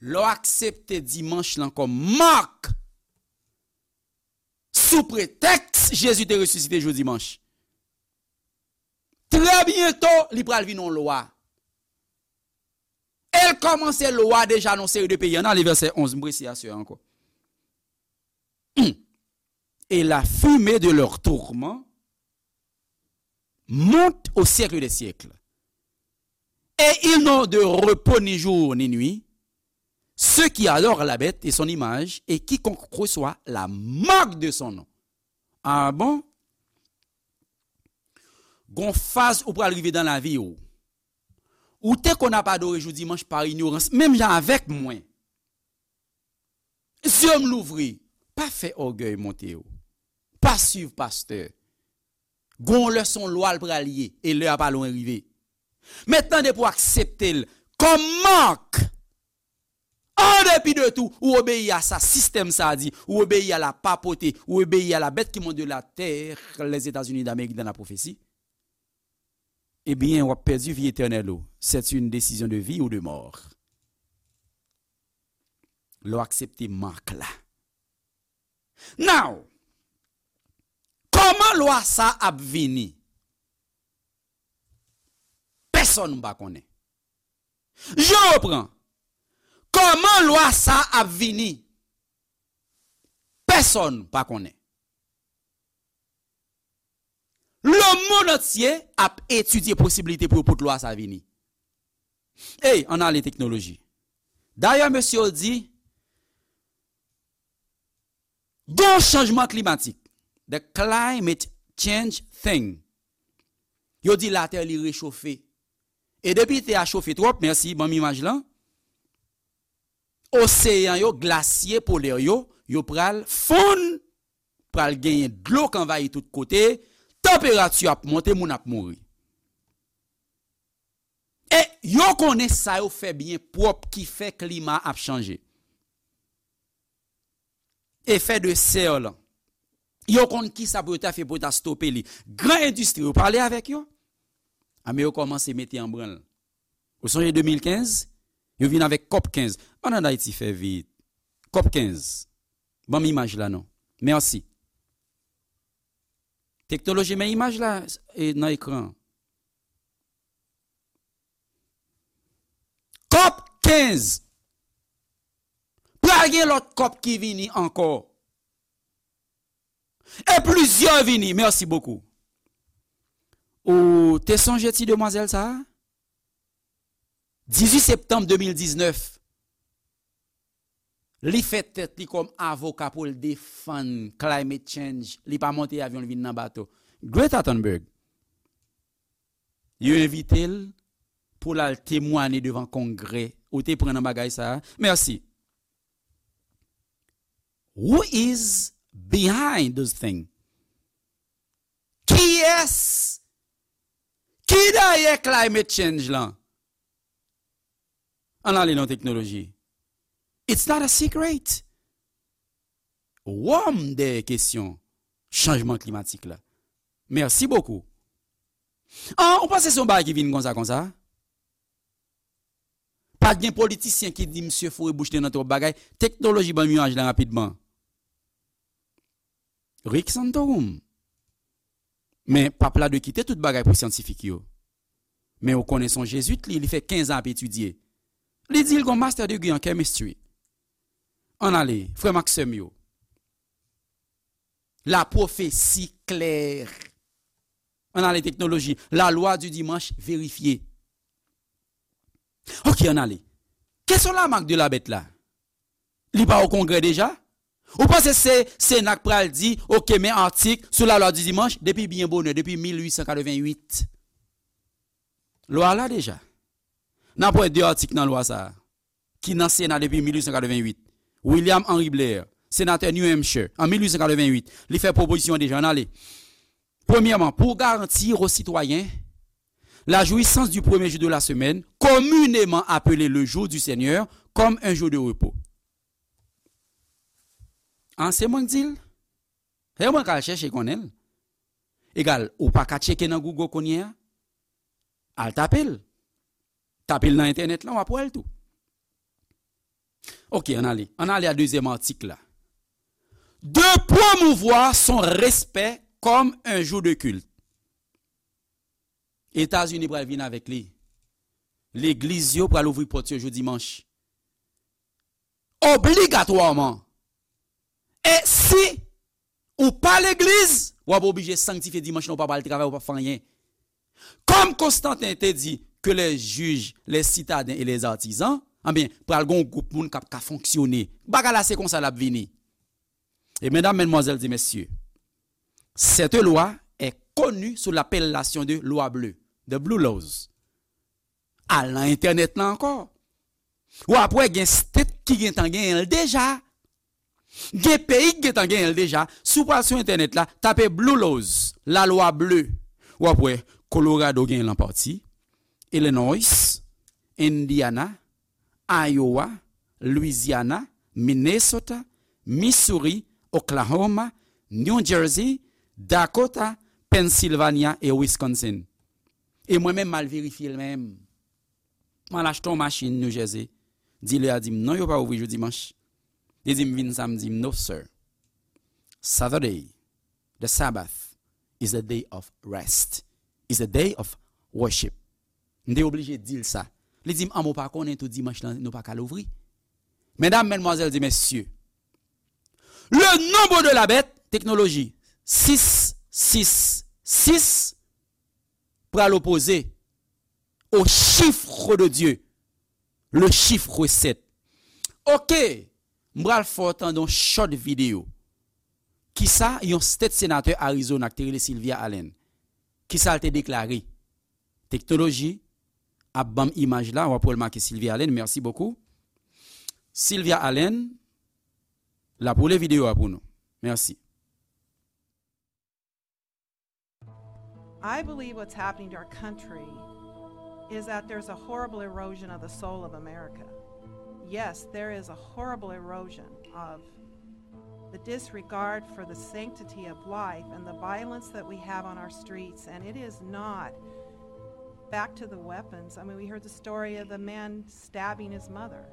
Lè w aksepte dimanch lan kòm mak, sou pretèks Jezi te resisite jou dimanch, trè byento, li pral vin yon lwa. E l kòmanse lwa deja nan yon seri de peyi. Ann ale vèsè onz, m prese aswè a ankò. Hmm. Et la fumée de leur tourment monte au siècle des siècles. Et ils n'ont de repos ni jour ni nuit, ceux qui adorent la bête et son image, et quiconque reçoit la marque de son nom. Ah bon? Gon faz ou pral rive nan lavi w. Ou te konn ap adore jou dimanch pa inyorans, menm jan avèk mwen. Zye m louvri, pa fè ògèy monte w. Pa swiv pastè. Gon lè se yon lwa l pral ye, e lè a pa lwen rive. Men tande pou aksepte l kòm mak. An depi de tou, ou obeyi a sa sistèm sa a di, ou obeyi a la papauté, ou obeyi a la bête qui monte de la terre, les États-Unis d'Amérique dans la prophétie. Ebyen, w ap pèdi vi etènèl ou. C'est une décision de vie ou de mort. Lè w aksepte mak la. Now, kòman lwa sa ap vini? Pèsonn pa konnen. Je reprends. Kòman lwa sa ap vini? Pèsonn pa konnen. Lemonn antye ap etidye posiblite pou yo pot lwa sa vini. Ey, ann ale teknoloji. Dayè, mesye yo di, gon chanjman klimatik. The climate change thing. Yo di latè li rechofe. E depi tè a chofe twòp, mèsi, ban m imaj lan. Oseyan yo, glasye polè yo, yo pral fonn, pral genyen dlo k anvayi tout kote, tanperati ap monte, moun ap mouri. E yo konnen sa yo fè byen pwòp ki fè klima ap chanje. Efè de sè lan. Yo konn kisa pou yo ta fè pou yo ta stope li. Gran endistri, yo pale avèk yo. Ame yo kòmanse mete an branl. Ou sonje de mil kenz? Yo vin avèk kòp kenz. Ann ann Ayiti fè vit. Kòp kenz. Ban m imaj la non. Mèsi. Teknoloji, men imaj la e, nan ekran. Kòp kenz. Pral gen lòt kòp ki vini ankò. E plizyè vini. Mèsi bokou. Ou te sonje ti demwazèl sa a? Dizuit septanm de mil diznèf, li fè tèt li kòm avoka pou l defann climate change. Li pa monte avyon, li vin nan bato. Greta Thunberg. Yo envite l pou l al temwanye devan Kongrè. Ou te pran nan bagay sa a? Mèsi. Who is behind those things? Kiyès ki dèyè climate change lan? Ann ale nan teknoloji. It's not a secret. Wòm dèyè kesyon chanjman klimatik la. Mèsi bokou. An, ou panse se yon bagay ki vin konsa konsa? Pa t gen politisyen ki di misye foure bouch li nan twòp bagay. Teknoloji ban m imaj la rapidman. Rick Santorum. Men pap la dwe kite tout bagay pou syantifik yo. Men ou konnen se yon jezwit li, li fè kenz an ap etidye. Li di l gon master degree an chemistry. Ann ale, frè m ak sè m yo. La pwofesi klè. Ann ale teknoloji. La lwa di dimanch verifye. Ok, ann ale. Kesyon la mak de la bèt la? Li pa o kongrè deja? Ou panse se Sena k pral di, ok, men atik sou la lwa di dimanch depi byen bonè, depi mil uit san katreven uit? Lwa la deja. N ap wè de atik nan lwa sa a, ki nan Sena depi mil uit san katreven uit. William Henry Blair, senatè New Hampshire, an mil uit san katreven uit, li fè pwopozisyon deja, ann ale. Premyèman, pour garantir aux citoyens la jouissance du premier jour de la semaine, communément appelé le jour du Seigneur, comme un jour de repos. An, se mwen k di l? Se mwen k al chèche konnen l. Egal, ou pa ka tcheke nan Google kounye a? Al tape l. Tape l nan entènèt lan, w ap wè l tou. Ok, ann ale. Ann ale a dezyèm atik la. De promouvoir son respect comme un jour de culte. Etazini pral vin avèk li. Legliz yo pral ouvri pòt yo jou dimanch. Obligatwaman. E si ou pa legliz, w ap oblije sanktifye dimanch lan, ou pa pral travay, ou pa fè anyen. Comme Constantin te dit que les juges, les citadins et les artisans, anben, pral gen yon gwoup moun k ap ka fonksyone. Bagay la se konsa l ap vini. E medam, madmwazèl e mesye, cette loi est connue sous l'appellation de loi bleue, the blue laws. Al nan entènèt lan ankò. W ap wè gen state ki gentan genyen l deja. Gen peyi ki gentan genyen l deja. Si w pral sou entènèt la, tape Blue Laws, lalwa ble. W ap wè Colorado genyen l an pati, Illinois, Indiana, Iowa, Louisiana, Minnesota, Missouri, Oklahoma, New Jersey, Dakota, Pennsylvania e Wisconsin. E mwen menm, m al verifye l menm. M al achte yon machin New Jersey. Dilè a di m, "Non, yo pa ouvri jou dimanch." Li di m, "Vin samdi." M, "No, sir. Saturday, the Sabbath, is a day of rest. Is a day of worship." M te oblije di l sa. Li di m, "An, ou pa konnen tou dimanch lan, nou pa ka louvri?" Medam, madmwazèl e mesye, le nombre de la bête, teknoloji, sis sis sis, pral opoze au chiffre de Dieu, le chiffre sept. Ok, m pral fè w tande yon short videyo. Kisa yon state senatè Arizona ki te rele Sylvia Allen, kisa l te deklare? Teknoloji ap ban m imaj la, w ap wè l make Sylvia Allen, merci beaucoup. Sylvia Allen, l ap woule videyo a pou nou. Merci. I believe what's happening to our country is that there's a horrible erosion of the soul of America. Yes, there is a horrible erosion of the disregard for the sanctity of life and the violence that we have on our streets, and it is not back to the weapons. I mean, we heard the story of the man stabbing his mother.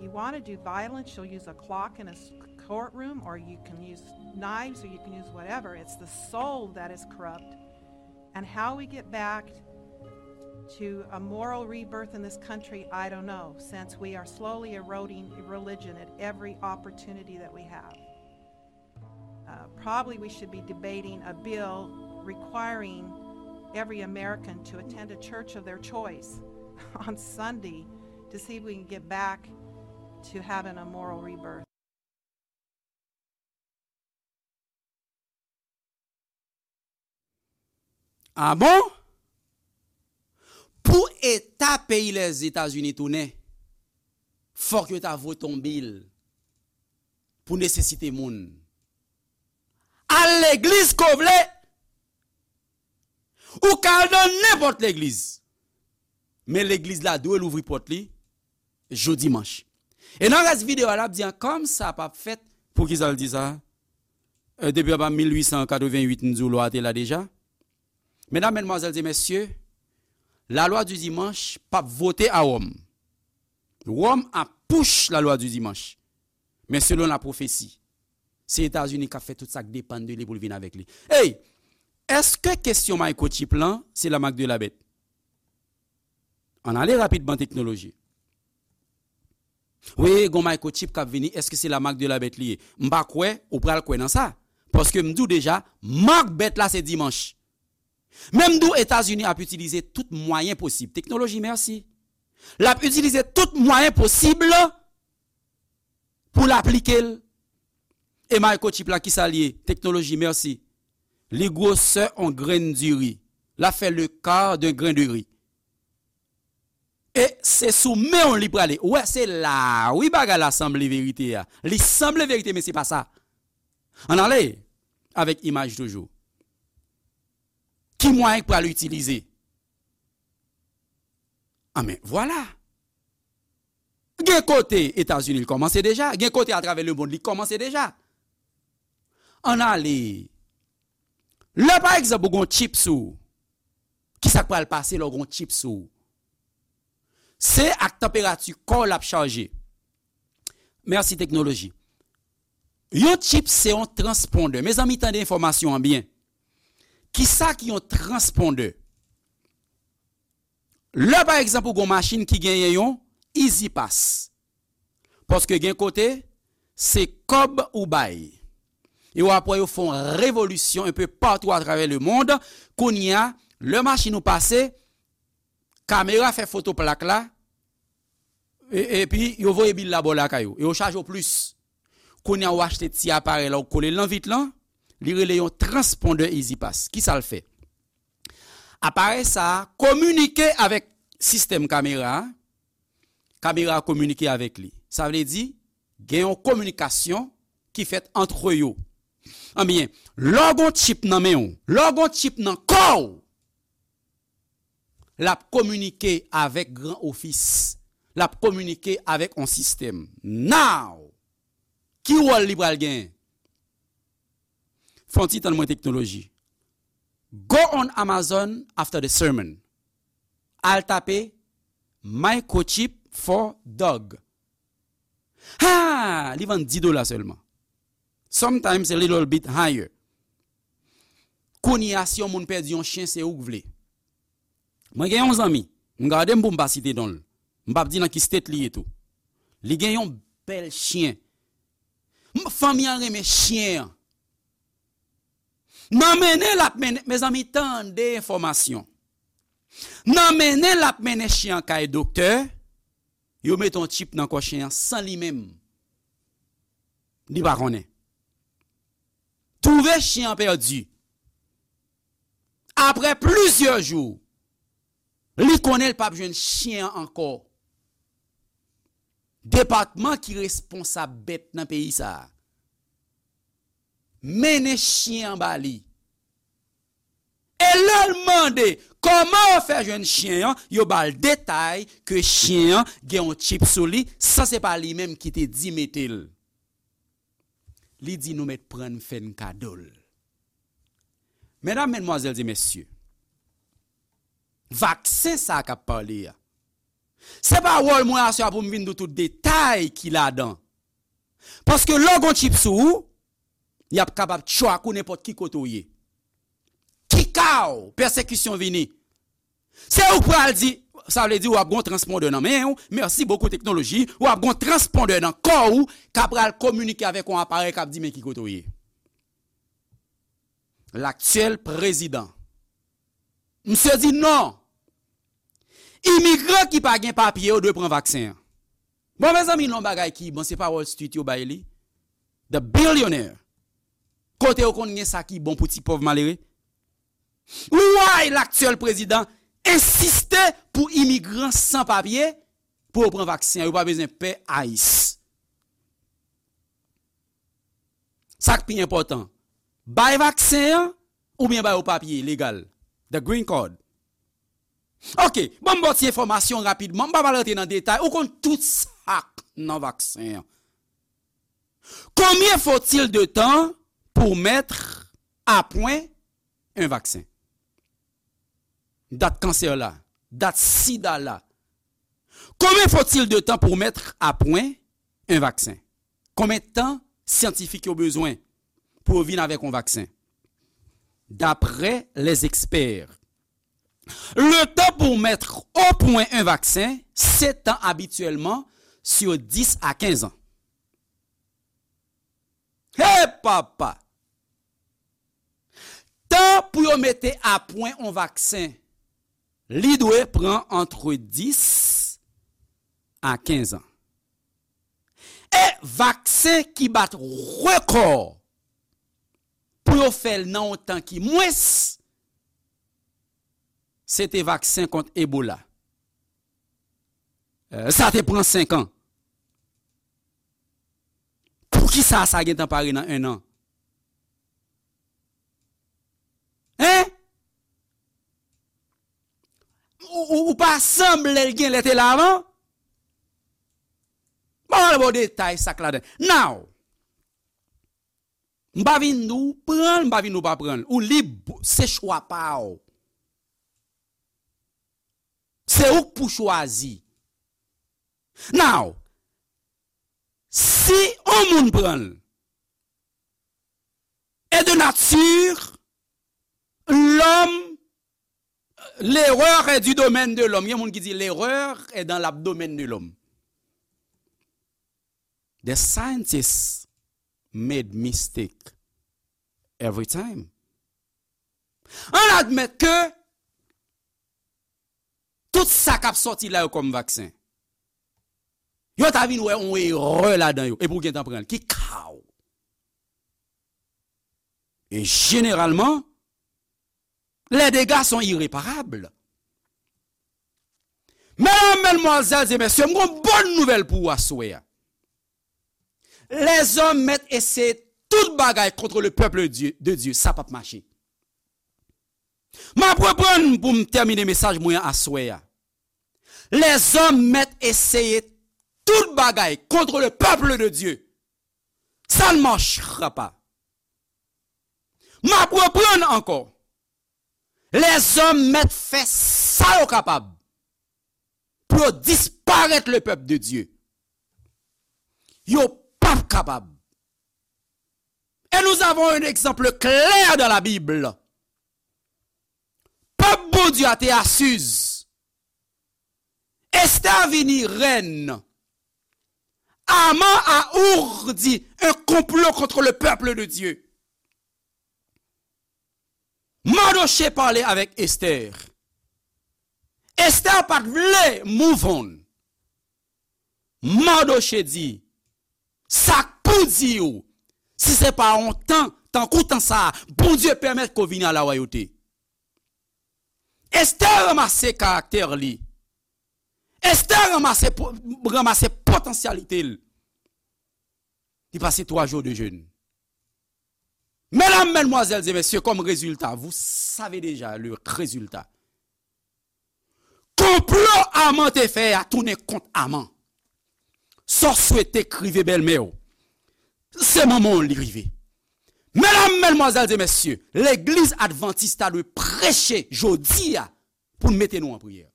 You want to do violence, you'll use a clock in a courtroom, or you can use knives, or you can use whatever. It's the soul that is corrupt. And how we get back to a moral rebirth in this country, I don't know, since we are slowly eroding religion at every opportunity that we have. Uh, probably we should be debating a bill requiring every American to attend a church of their choice on Sunday to see if we can get back to having a moral rebirth. Ah bon? Pou eta peyi Lèzetazini tounen, fòk yo ta vote yon bil. pou nesesite moun. Al legliz ke w vle. Ou ka al nan nenpòt legliz. Men legliz la dwe louvri pòt li jou dimanch. E nan rès videyo a, l ap di an, kòm sa p ap fèt, poukisa l di sa? E, depi anba mil uit san katreven uit, m di w lwa a te la deja. Medam, medmwazèl e mesye, la loi du dimanche p ap vote a Wòm. Wòm ap push la loi du dimanche. Men selon la pwofesi, se Etazini k ap fè tout sa k depann de li pou l vin avèk li. Ey, èske kesyon microchip lan, se la marque de la bête? Ann ale rapidman teknoloji. Wi, gon microchip k ap vini, èske se la marque de la bête li ye? M pa kwè ou pral kwè nan sa. Paske m di w deja, mak bèt la se dimanch. Men m di w Etazini ap itilize tout mwayen posib. Teknoloji, mèsi. L ap itilize tout mwayen posib pou l aplike l. E microchip la, kisa l ye? Teknoloji, mèsi. Li gwosè on grenn diri. L ap fè le quart d'un grain de riz. E se sou men w li prale. Ou wè, se la, wi, bagay la sanble verite a. Li sanble verite, men se pa sa. Ann ale avèk imaj toujou. Ki mwayen k pral itilize? Anben, vwala. Gen kote Etazini, li kòmanse deja. Gen kote atravè lemonn, li kòmanse deja. Ann ale. Lè, pa egzanp, ou gon chip sou ou, kisa k pral pase lè w gon chip sou ou? Se ak tanperati kò w l ap chaje. Mèsi teknoloji. Yon chip se yon transpondè. Mezanmi, tande enfòmasyon an byen. Kisa ki yon transpondè? Lè, pa egzanp, ou gon machin ki genyen yon E-ZPass. Paske gen kote, se kòb ou bay. E w ap wè yo fè yon revolisyon un peu partout à travers le monde. Kounye a, lè machin ou pase, kamera fè foto plak la, e, epi yo voye bil la ba w lakay ou. E yo chaje w plis. Kounye a, ou achte ti aparèy la, ou kole l nan vit lan, li rele yon transpondè E-ZPass. Kisa l fè? Aparèy sa a kominike avèk sistèm kamera a, kamera a kominike avèk li. Sa vle di, gen yon kominikasyon ki fèt ant yo. Anbyen, lè w gon chip nan men w, lè w gon chip nan kò w, l ap kominike avèk gran ofis, l ap kominike avèk yon sistèm. Now, ki wòl li pral genyen? Fè yon ti tann mwen teknoloji. Go on Amazon after the sermon. Al tape microchip for dog. Ha! Li vann dis dola sèlman. Sometimes a little bit higher. Kounye a, si yon moun pèdi yon chen, se ou k vle. Mwen gen yon zanmi, m gade m pou m pa site non l. M p ap di nan ki state li ye tou. Li gen yon bèl chen. M, fanmi an renmen chen an. Nan mennen l ap mennen, mezanmi, tande enfòmasyon. Nan mennen l ap mennen chen an kay doktè, yo mete yon chip nan kò chen an san li menm. Li pa konnen. Twouve chen an pèdi. Apre plizyè jou, li konnen l p ap jwenn chen an ankò. Depatman ki responsab bèt nan peyi sa a mennen chen an ba li. E lè l mande kòman yo fè jwenn chen an, yo ba l detay ke chen an gen yon chip sou li, san se pa li menm ki te di mete l. Li di nou mèt pran n fè n kado l. Medam, medmwazèl e mesye, vaksen sa a k ap pale a, se pa wòl mwen aswè a pou m vin di w tout detay ki ladan. Paske lè w gon chip sou ou, y ap kapab track ou nenpòt ki kote w ye. Ki ka w, pèsekisyon vini. Se ou k pral di, sa vle di w ap gon transpondè nan men w, merci beaucoup teknoloji, w ap gon transpondè nan kò w, k ap pral kominike avèk yon aparèy k ap di men ki kote w ye. Laktyèl prezidan. Misye di non. Imigran ki pa gen papye yo dwe pran vaksen an. Bon, mezanmi, non bagay ki bon, se pa Wall Street yo bay li. The Billionaire. Kote yo konn gen sa ki bon pou ti pòv malere? Why laktyèl prezidan ensiste pou imigran san papye pou yo pran vaksen an, yo pa bezwen pè ICE. Sa k pi enpòtan, bay vaksen an oubyen ba yo papye legal, the green card. Ok, ban m ba w ti enfòmasyon rapidman, m pa pral rantre nan detay, ou konn tout sa k nan vaksen an. Combien faut-il de temps pour mettre à point un vaccin? Dat kansè la, dat sida la. Combien faut-il de temps pour mettre à point un vaccin? Konbyen tan syantifik yo bezwen pou yo vin avèk yon vaksen? D'après les experts, le temps pour mettre au point un vaccin s'étend habituellement sur dix à quinze ans. Hey papa! Tan pou yo mete a pwen yon vaksen, li dwe pran antre dis a kenz an. E vaksen ki bat rekò pou yo fè l nan yon tan ki mwens, se te vaksen kont Ebola. Eh, sa te pran senk an. Poukisa sa gentan pare nan en an? Hein? Ou, ou, ou pa sanble l genlè te la avan? Bon, bon, detay sa k ladan. Now, m pa vin di w pran l, m pa vin di w pa pran l. Ou lib, se chwa pa w. Se ou k pou chwazi. Now, si yon moun pran l, e de nature, l'homme, l'erreur est du domaine de l'homme. Gen moun ki di l'erreur est dans l'abdomen de l'homme. The scientists made mistake every time. Ann admèt ke tout sa k ap sòti la yo kòm vaksen, yo ta vin wè yon erè ladan yo, epi w gentan pran l. Ki ka w? E jeneralman, les dégâts sont irréparables. Medam, madmwazèl e mesye, m gon bòn nouvèl pou ou aswè a. Lèzòm mèt eseye tout bagay kont le pèp de Dye, de Dye, sa p ap mache. M ap reprann pou m tèmine mesaj mwen an aswè a. Lèzòm mèt eseye tout bagay kont le pèp de Dye, ça ne marchera pas. M ap reprann ankò. Lèzòm mèt fè sa yo kapab pou yo disparèt le pèp de Dye. Yo p ap kapab. Et nous avons un exemple clair dans la Bible. Pèp Bondye a te asiz. Esther vini rèn. Aman a ourdi un complot contre le peuple de Dieu. Mardochée pale avèk Esther. Esther pa t vle move on. Mardochée di, sa k pou di w, si se pa yon tan, tankou tan sa a, Bondye pèmèt ke w vini a la wayòte. Esther ranmase karaktè li. Esther ranmase po-, ranmase potansyalite l. Li pase twa jou de jèn. Medam, madmwazèl e mesye, kòm rezilta, vous savez déjà le résultat. Konplo Aman te fè a tounen kont Aman. Sa w swete k rive bèlmè w, se manman w li rive. Medam, madmwazèl e mesye, legliz advantis ta dwe preche jodi a pou n mete nou an priyè.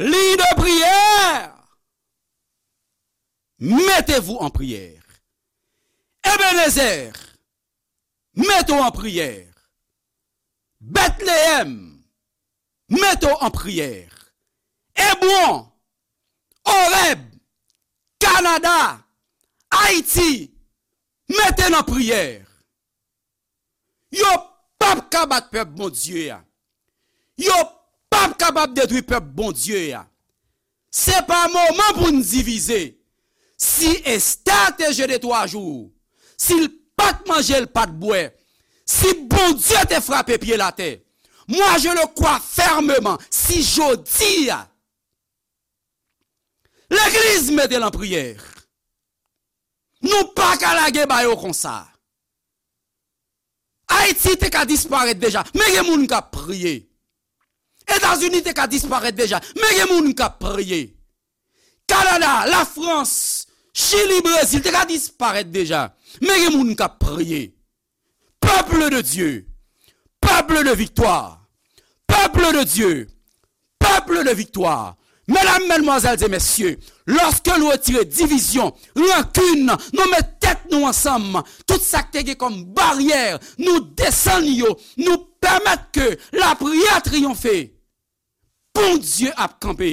Ligne de prière, mettez-vous en prière. Ebenezer, mete w an priyè. Betleyèm, mete w an priyè. Ebwon, Orèb, Kanada, Ayiti, mete n an priyè. Yo p ap ka bat pèp Bondye a. Yo p ap kapab detwi pèp Bondye a. Se pa moman pou n divize. Si Esther te jene twa jou, si l pa t manje, l pa t bwè, si Bondye te frape pye l atè, moi je le crois fermement, si jodi a, legliz mete l an priyè, Nou pa ka lage ba yo konsa. Ayiti te ka disparèt deja, men gen moun k ap priye. Etazini te ka disparèt deja, men gen moun k ap priye. Kanada, Lafrans, Chili, Brezil te ka disparèt deja, men gen moun k ap priye. Peuple de Dieu, peuple de victoire, peuple de Dieu, peuple de victoire. Medam, madmwazèl e mesye, lòske nou retire divizyon, rankin, nou met tèt nou ansanm, tout sa k te gen kòm baryè, nou desann yo, nou pèmèt ke lapriyè triyonfe. Bondye ap kanpe.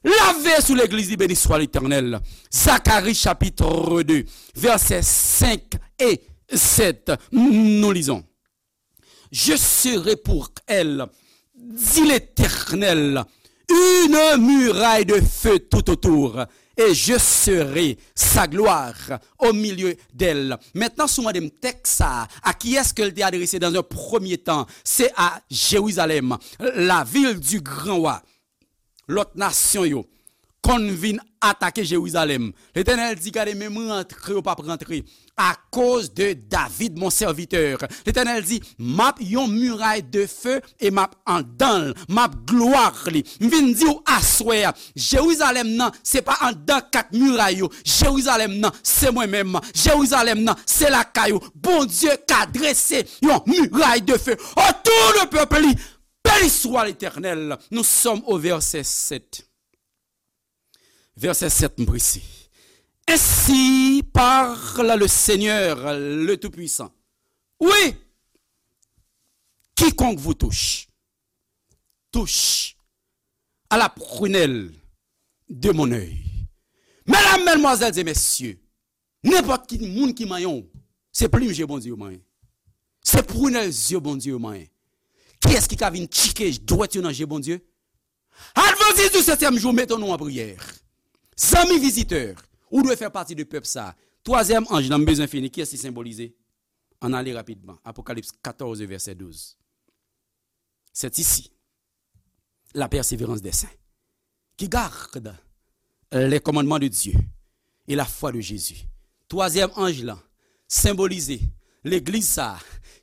L ap veye sou legliz li, beni swa Letènèl. Zakari chapitre deux, vèsè cinq et sept. Nous lisons. Je serai pour elle, dit l'Éternel, une muraille de feu tout autour, et je serai sa gloire au milieu d'elle. Maintenant, si w mande m tèks sa a, a kiyès ke l te adrese dans un premier temps? C'est à Jérusalem, la ville du grand roi. Lòt nasyon yo konn vin atake Jerizalèm. Letènèl di, gade, menm rantre, yo p ap rantre. Akoz de David, mon serviteur. Letènèl di, m ap yon miray de fe e m ap andan l, m ap glwa li. M vin di w aswè a, Jerizalèm nan, se pa andan kat miray yo. Jerizalèm nan, se mwen menm. Jerizalèm nan, se lakay ou. Bondye ka drese yon miray de fe otou de pèp li. Beni swa Letènèl. Nous sommes au verset sept. Verset sept, m prese. Ainsi parle le Seigneur, le Tout-Puissant. Oui, quiconque vous touche, touche à la prunelle de mon œil. Medam, madmwazèl e mesye, nenpòt ki moun ki manyen w, se plim je Bondye yo manyen. Se prunelle zye Bondye yo manyen. Kiyès ki ka vin tchike dwèt yo nan je Bondye? Advantis di setyèm jou, mete nou an priyè. Zanmi vizitè, ou dwe fè pati de pèp sa a. Twazyèm anj lan, m bezwen fini. Kiyès li senbolize? Ann ale rapidman. Apokalips katòz, vèsè douz. C'est ici la persévérance des saints qui gardent les commandements de Dieu et la foi de Jésus. Twazyèm anj lan senbolize legliz sa a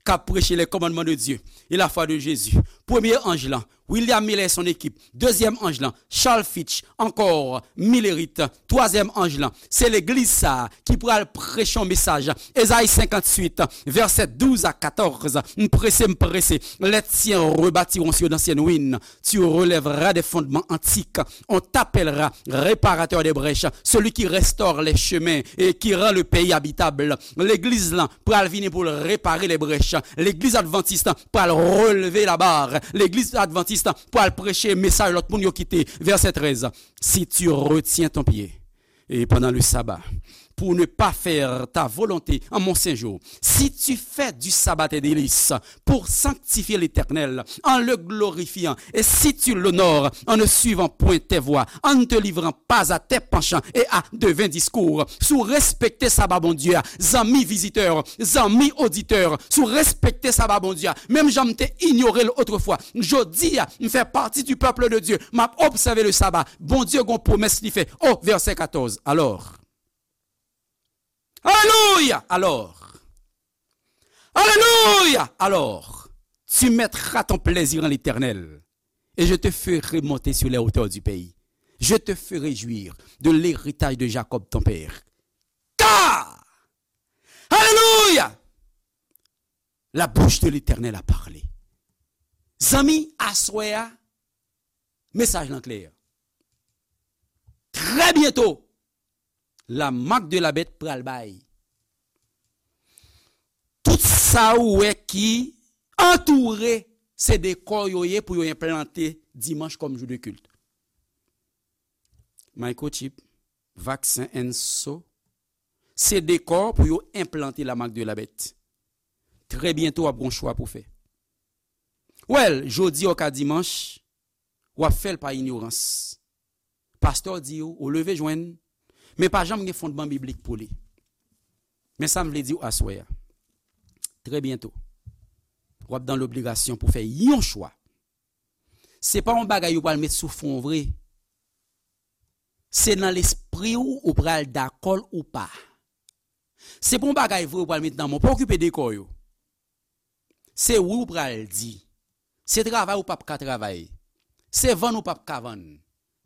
k ap preche les commandements de Dieu et la foi de Jésus. Premye anj lan, William Miller et son équipe. Dezyèm anj lan, Charles Fitch, ankò Millerit. Twazyèm anj lan, se legliz sa a ki pral preche yon mesaj. Ezayi senkanntuit, vèsè douz a katòz. M prese, m prese. Les tiens rebâtiront sur d'anciennes ruines. Tu relèveras des fondements antiques. On t'appellera réparateur des brèches, celui qui restaure les chemins et qui rend le pays habitable. Legliz lan pral vini pou l repare les brèches. Legliz advantis pral releve la barre. Legliz advantis pral preche mesaj lòt moun yo kite. Vèsè trèz. Si tu retiens ton pied, et pendant le sabbat, pour ne pas faire ta volonté en mon saint jour, si tu fais du sabbat tes délices pour sanctifier l'Éternel en le glorifiant, et si tu l'honores en ne suivant point tes voies, en ne te livrant pas à tes penchants et à de vains discours, si w respekte saba Bondye a, zanmi vizitè, zanmi oditè, si w respekte saba Bondye a, menm jan m te inyore l otrefwa, jodi a, m fè pati du peuple de Dieu, m ap obsève le sabbat. Bondye gon pwomès li fè. O, vèsè katòz. Alors, alelouya! Alors, alelouya! Alors, tu mettras ton plaisir en l'Éternel, et je te ferai monter sur les hauteurs du pays. Je te ferai jouir de l'héritage de Jacob ton père. Car, alelouya! La bouche de l'Éternel a parlé. Zanmi, aswè a, mesaj lan klè. Très bientôt, la marque de la bête pral bay. Tout sa ou wè ki antoure, se dekò yo ye pou yo enplante dimanch kòm jou de kilt. Microchip, vaksen and so, se dekò pou yo enplante la marque de la bête. Très bientôt, w ap gon chwa pou fè. Well, jodi a ou ka dimanch, w ap fè l pa inyorans. Pastè di w, ou leve jwenn, men pa janm gen fondman biblik pou li. Men sa m vle di w aswè a. Très bientôt, w ap dans l'obligation pou fè yon chwa. Se pa yon bagay yo pral met sou fwon w vre. Se nan lespri w ou pral dakò l ou pa. Se pa yon bagay vre ou pral met nan men w. Pa okipe de kò yo. Se wi ou pral di. Se travay ou p ap ka travay. Se vann ou p ap ka vann.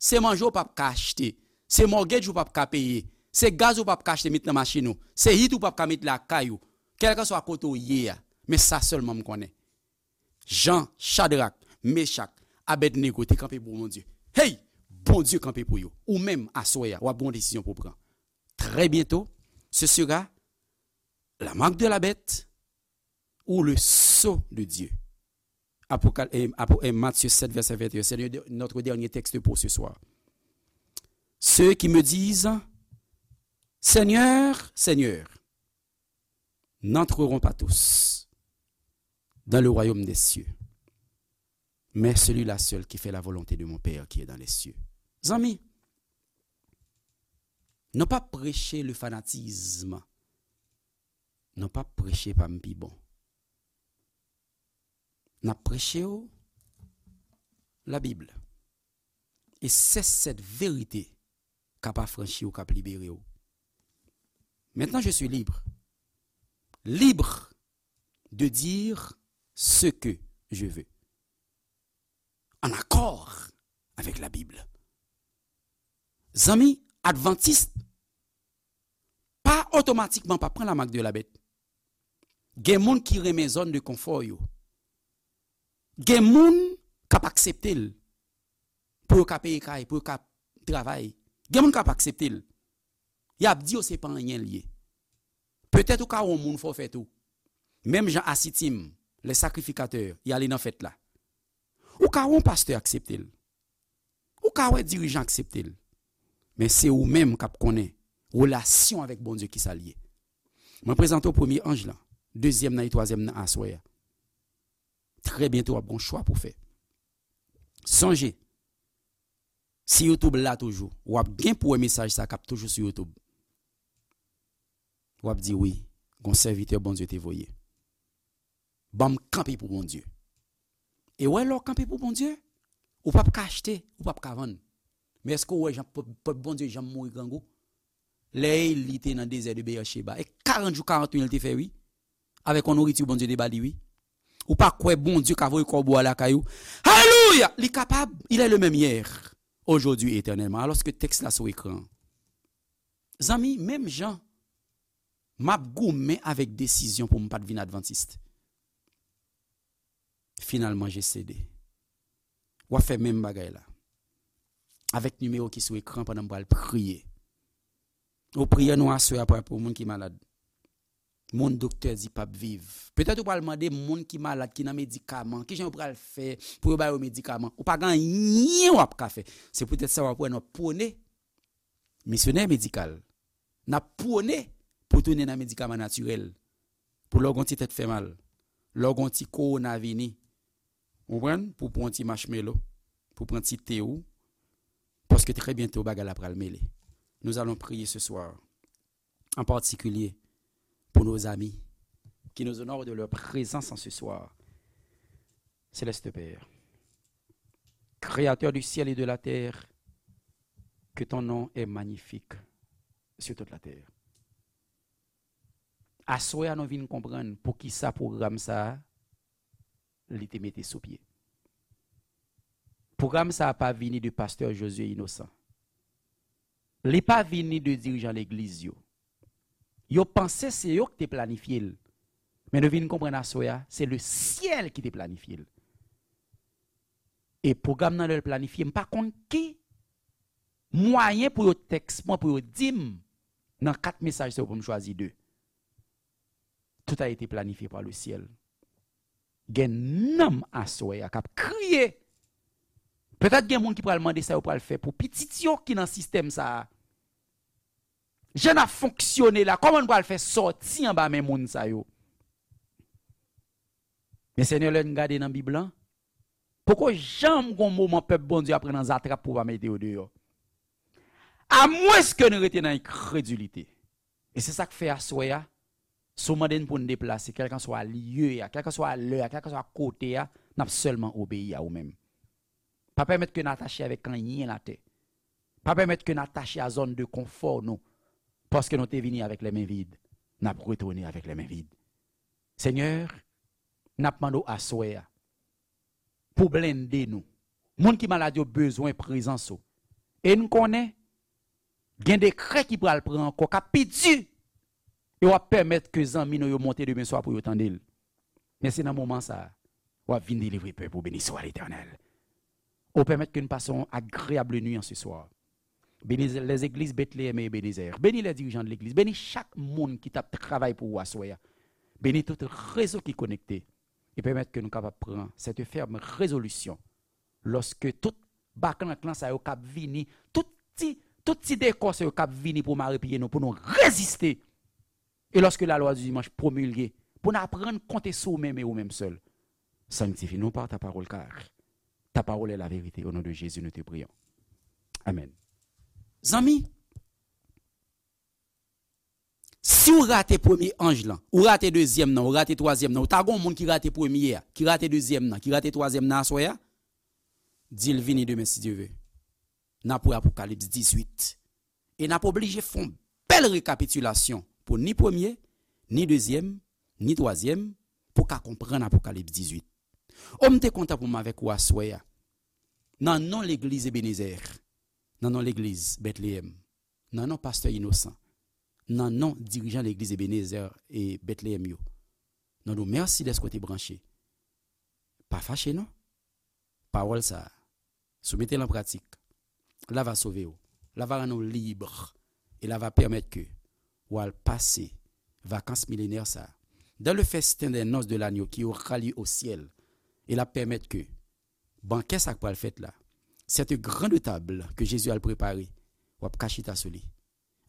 Se manje ou p ap ka achte. Se mortgage ou p ap ka peye. Se gaz ou p ap ka achte met nan machin ou. Se hit ou p ap ka met lakay ou. Kèlkanswa kote w ye a. Men sa sèlman m konnen. Jan Chadrak, Mechak, Abednego te kanpe pou Bondye. Hey! Bondye kanpe pou yo. Ou menm, aswè a, w ap gen yon desizyon pou w pran. Très bientôt, ce sera la marque de la bête ou le sceau de Dieu. Apokal- eh, Apo- eh, Matthieu sept, verset vingt et un. C'est le- notre dernier texte pour ce soir. Ceux qui me disent, Seigneur, Seigneur, n'entreront pas tous dans le royaume des cieux, mais celui-là seul qui fait la volonté de mon Père qui est dans les cieux. Zanmi, nou p ap preche le fanatisme. Nou p ap preche pa m pi bon. N ap preche w Labib. Et c'est cette vérité k ap afranchi w, k ap libere w. Maintenant, je suis libre. Libre de dire ce que je veux. En accord avec la Bible. Zanmi, advantis pa otomatikman pa pran la marque de la bête. Gen moun ki renmen zòn de konfò yo. Gen moun k ap aksepte l pou yo ka peye kay, pou yo ka travay. Gen moun k ap aksepte l. Y ap di yo se pa anyen l ye. Petèt ou ka wè yon moun fè w fè tou. Menm jan Asitim, les sacrificateurs, y ale nan fèt la. Ou ka wè yon pastè aksepte l. Ou ka wè dirijan aksepte l. Men se ou menm k ap konnen relasyon avèk Bondye ki sa l ye. Mwen prezante w premye anj lan, dezyèm nan e twazyèm nan aswè a. Trè byento w ap gen yon chwa pou w fè. Sonje, si YouTube la toujou, w ap gen pou wè mesaj sa k ap toujou sou YouTube. W ap di wi, gon sèvitè Bondye te voye. Ban m kanpe pou Bondye. E wè lè w kanpe pou Bondye, ou p ap ka achte, ou p ap ka vann. Men èske w wè jan pèp pèp Bondye janm mouri grangou? Lè Eli te nan dezè de Bèyècheba, e karant jou, karant nuit li te fè wi. Avèk yon nouriti Bondye te ba li wi. Ou pa kwè Bondye ka voye kòbo a lakay ou? Alelouya! Li kapab, il est le même hier, aujourd'hui et éternellement. Alòske tèks la sou ekran. Zanmi, menm jan m ap goumen avèk desizyon pou m pa t vin advantis. Finalman, je cédé. W ap fè menm bagay la. Avèk nimewo ki sou ekran pandan m pral priye. Ou priyè nou aswè a pral pou moun ki malad. Moun doktè di p ap viv. Petèt ou pral mande moun ki malad, ki nan medikaman, kijan yo pral fè pou yo ba yo medikaman. Ou pa gen anyen w ap ka fè. Se poutèt sa w ap wè n ap pwone misyonè medikal. N ap pwone pou tounen nan medikaman natirèl. Pou lè w gen yon ti tèt fè mal, lè w gen yon ti kowona vini, ou konprann? Pou w pran yon ti marshmallow, pou w pran ti te ou, paske trè byento bagay la pral mele. Nous allons prier ce soir, en particulier pour nos amis qui nous honorent de leur présence en ce soir. Céleste Père, Créateur du ciel et de la terre, que ton nom est magnifique sur toute la terre. Aswè a nou vin konprann poukisa pwogram sa a, li te mete sou pye. Pwogram sa a pa vini de pastè Josué Innocent. Li pa vini de dirijan legliz yo. Yo panse se yo ki te planifye l. Men nou vin konprann aswè a, se le syèl ki te planifye l. E pwogram nan lè l planifye, m pa konn ki mwayen pou yo tèks mwen, pou yo di m nan kat mesaj sa yo pou m chwazi de. Tout a été planifié par le ciel. Gen nanm aswè a k ap kriye. Petèt gen moun ki pral mande sa yo pral fè pou pitit yo ki nan sistèm sa a. Jan n ap fonksyone la, kòman n pral fè sòti anba men moun sa yo? Men Senyè, lè n gade nan Bib lan, poko janm gon moman pèp Bondye ap pran nan zatrap pou w pa mete yo deyò. Amwenske n rete nan enkredilite. E se sa k fè aswè a, si w mande n pou n deplase, kèlkanswa lye a, kèlkanswa lè a, kèlkanswa kote a, n ap sèlman obeyi a ou menm. Pa pèmèt ke n atache avèk anyen latè. Pa pèmèt ke n atache a zòn de konfò nou, paske nou te vini avèk lè men vid. n ap retounen avèk lè men vid. Senyè, n ap mande w aswè a pou blende nou. Moun ki malad yo bezwen prezans ou. E n konnen gen dekrè ki pral pran ankò, k ap pi di. E w ap pèmèt ke zanmi nou yo monte demen swa pou yo tande l. Men se nan moman sa a, w ap vin delivre pèp ou. Beni swa Letènèl. Ou pèmèt ke n pase yon agreyab nwi an se swa. Beni lèzegliz Betleyèm e Ebenezè. Beni lè dirijan de legliz. Beni chak moun ki t ap travay pou ou aswè a. Beni tout rezo ki konekte. E pèmèt ke nou kapab pran sète fèm rezolisyon lòske tout baklank lan sa yo k ap vini, tout ti, tout ti dekò sa yo k ap vini pou mare pye nou, pou nou reziste. E lòske lalwa di dimanch pwomilge, pou n aprann konte sou ou menm e ou menm sèl. Sanctifie-nous par ta parole, car ta parole est la vérité. Au nom de Jésus, nous te prions. Amen. Zanmi, si w rate premye anj lan, ou rate dezyèm nan, ou rate twazyèm nan, ou ta gon moun ki rate premye a, ki rate dezyèm nan, ki rate twazyèm nan aswè a, di l vini demen si Dye ve. N ap wè Apokalips dizuit. E n ap oblije fè yon bèl rekapitilasyon pou ni premye, ni dezyèm, ni twazyèm, pou ka konprann Apokalips dizuit. O, m te kontan pou m avèk ou aswè a. Nan non legliz Ebenezè, nan non legliz Betleyèm, nan non pastè Inosan, nan non dirijan legliz Ebenezè e Betleyèm yo, nou di w mèsi dèske w te branche. Pa fache non. Pawòl sa a, si w mete l an pratik, l a va sove w, l a va rann ou lib, e l a va pèmèt ke w al pase vakans milenè sa a dans le festin des noces de l'agneau qui aura lieu au ciel. E l ap pèmèt ke bankè sa k pral fèt la, cette grande table que Jésus al prepare, w ap ka chita sou li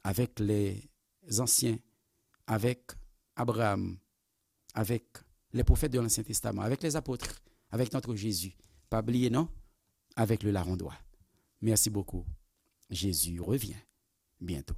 avèk lè zansyen, avèk Abraham, avec les prophètes de l'Ancien Testament, avec les apôtres, avec notre Jésus. Pa bliye non, avec le larron droit. Merci beaucoup. Jésus revient bientôt.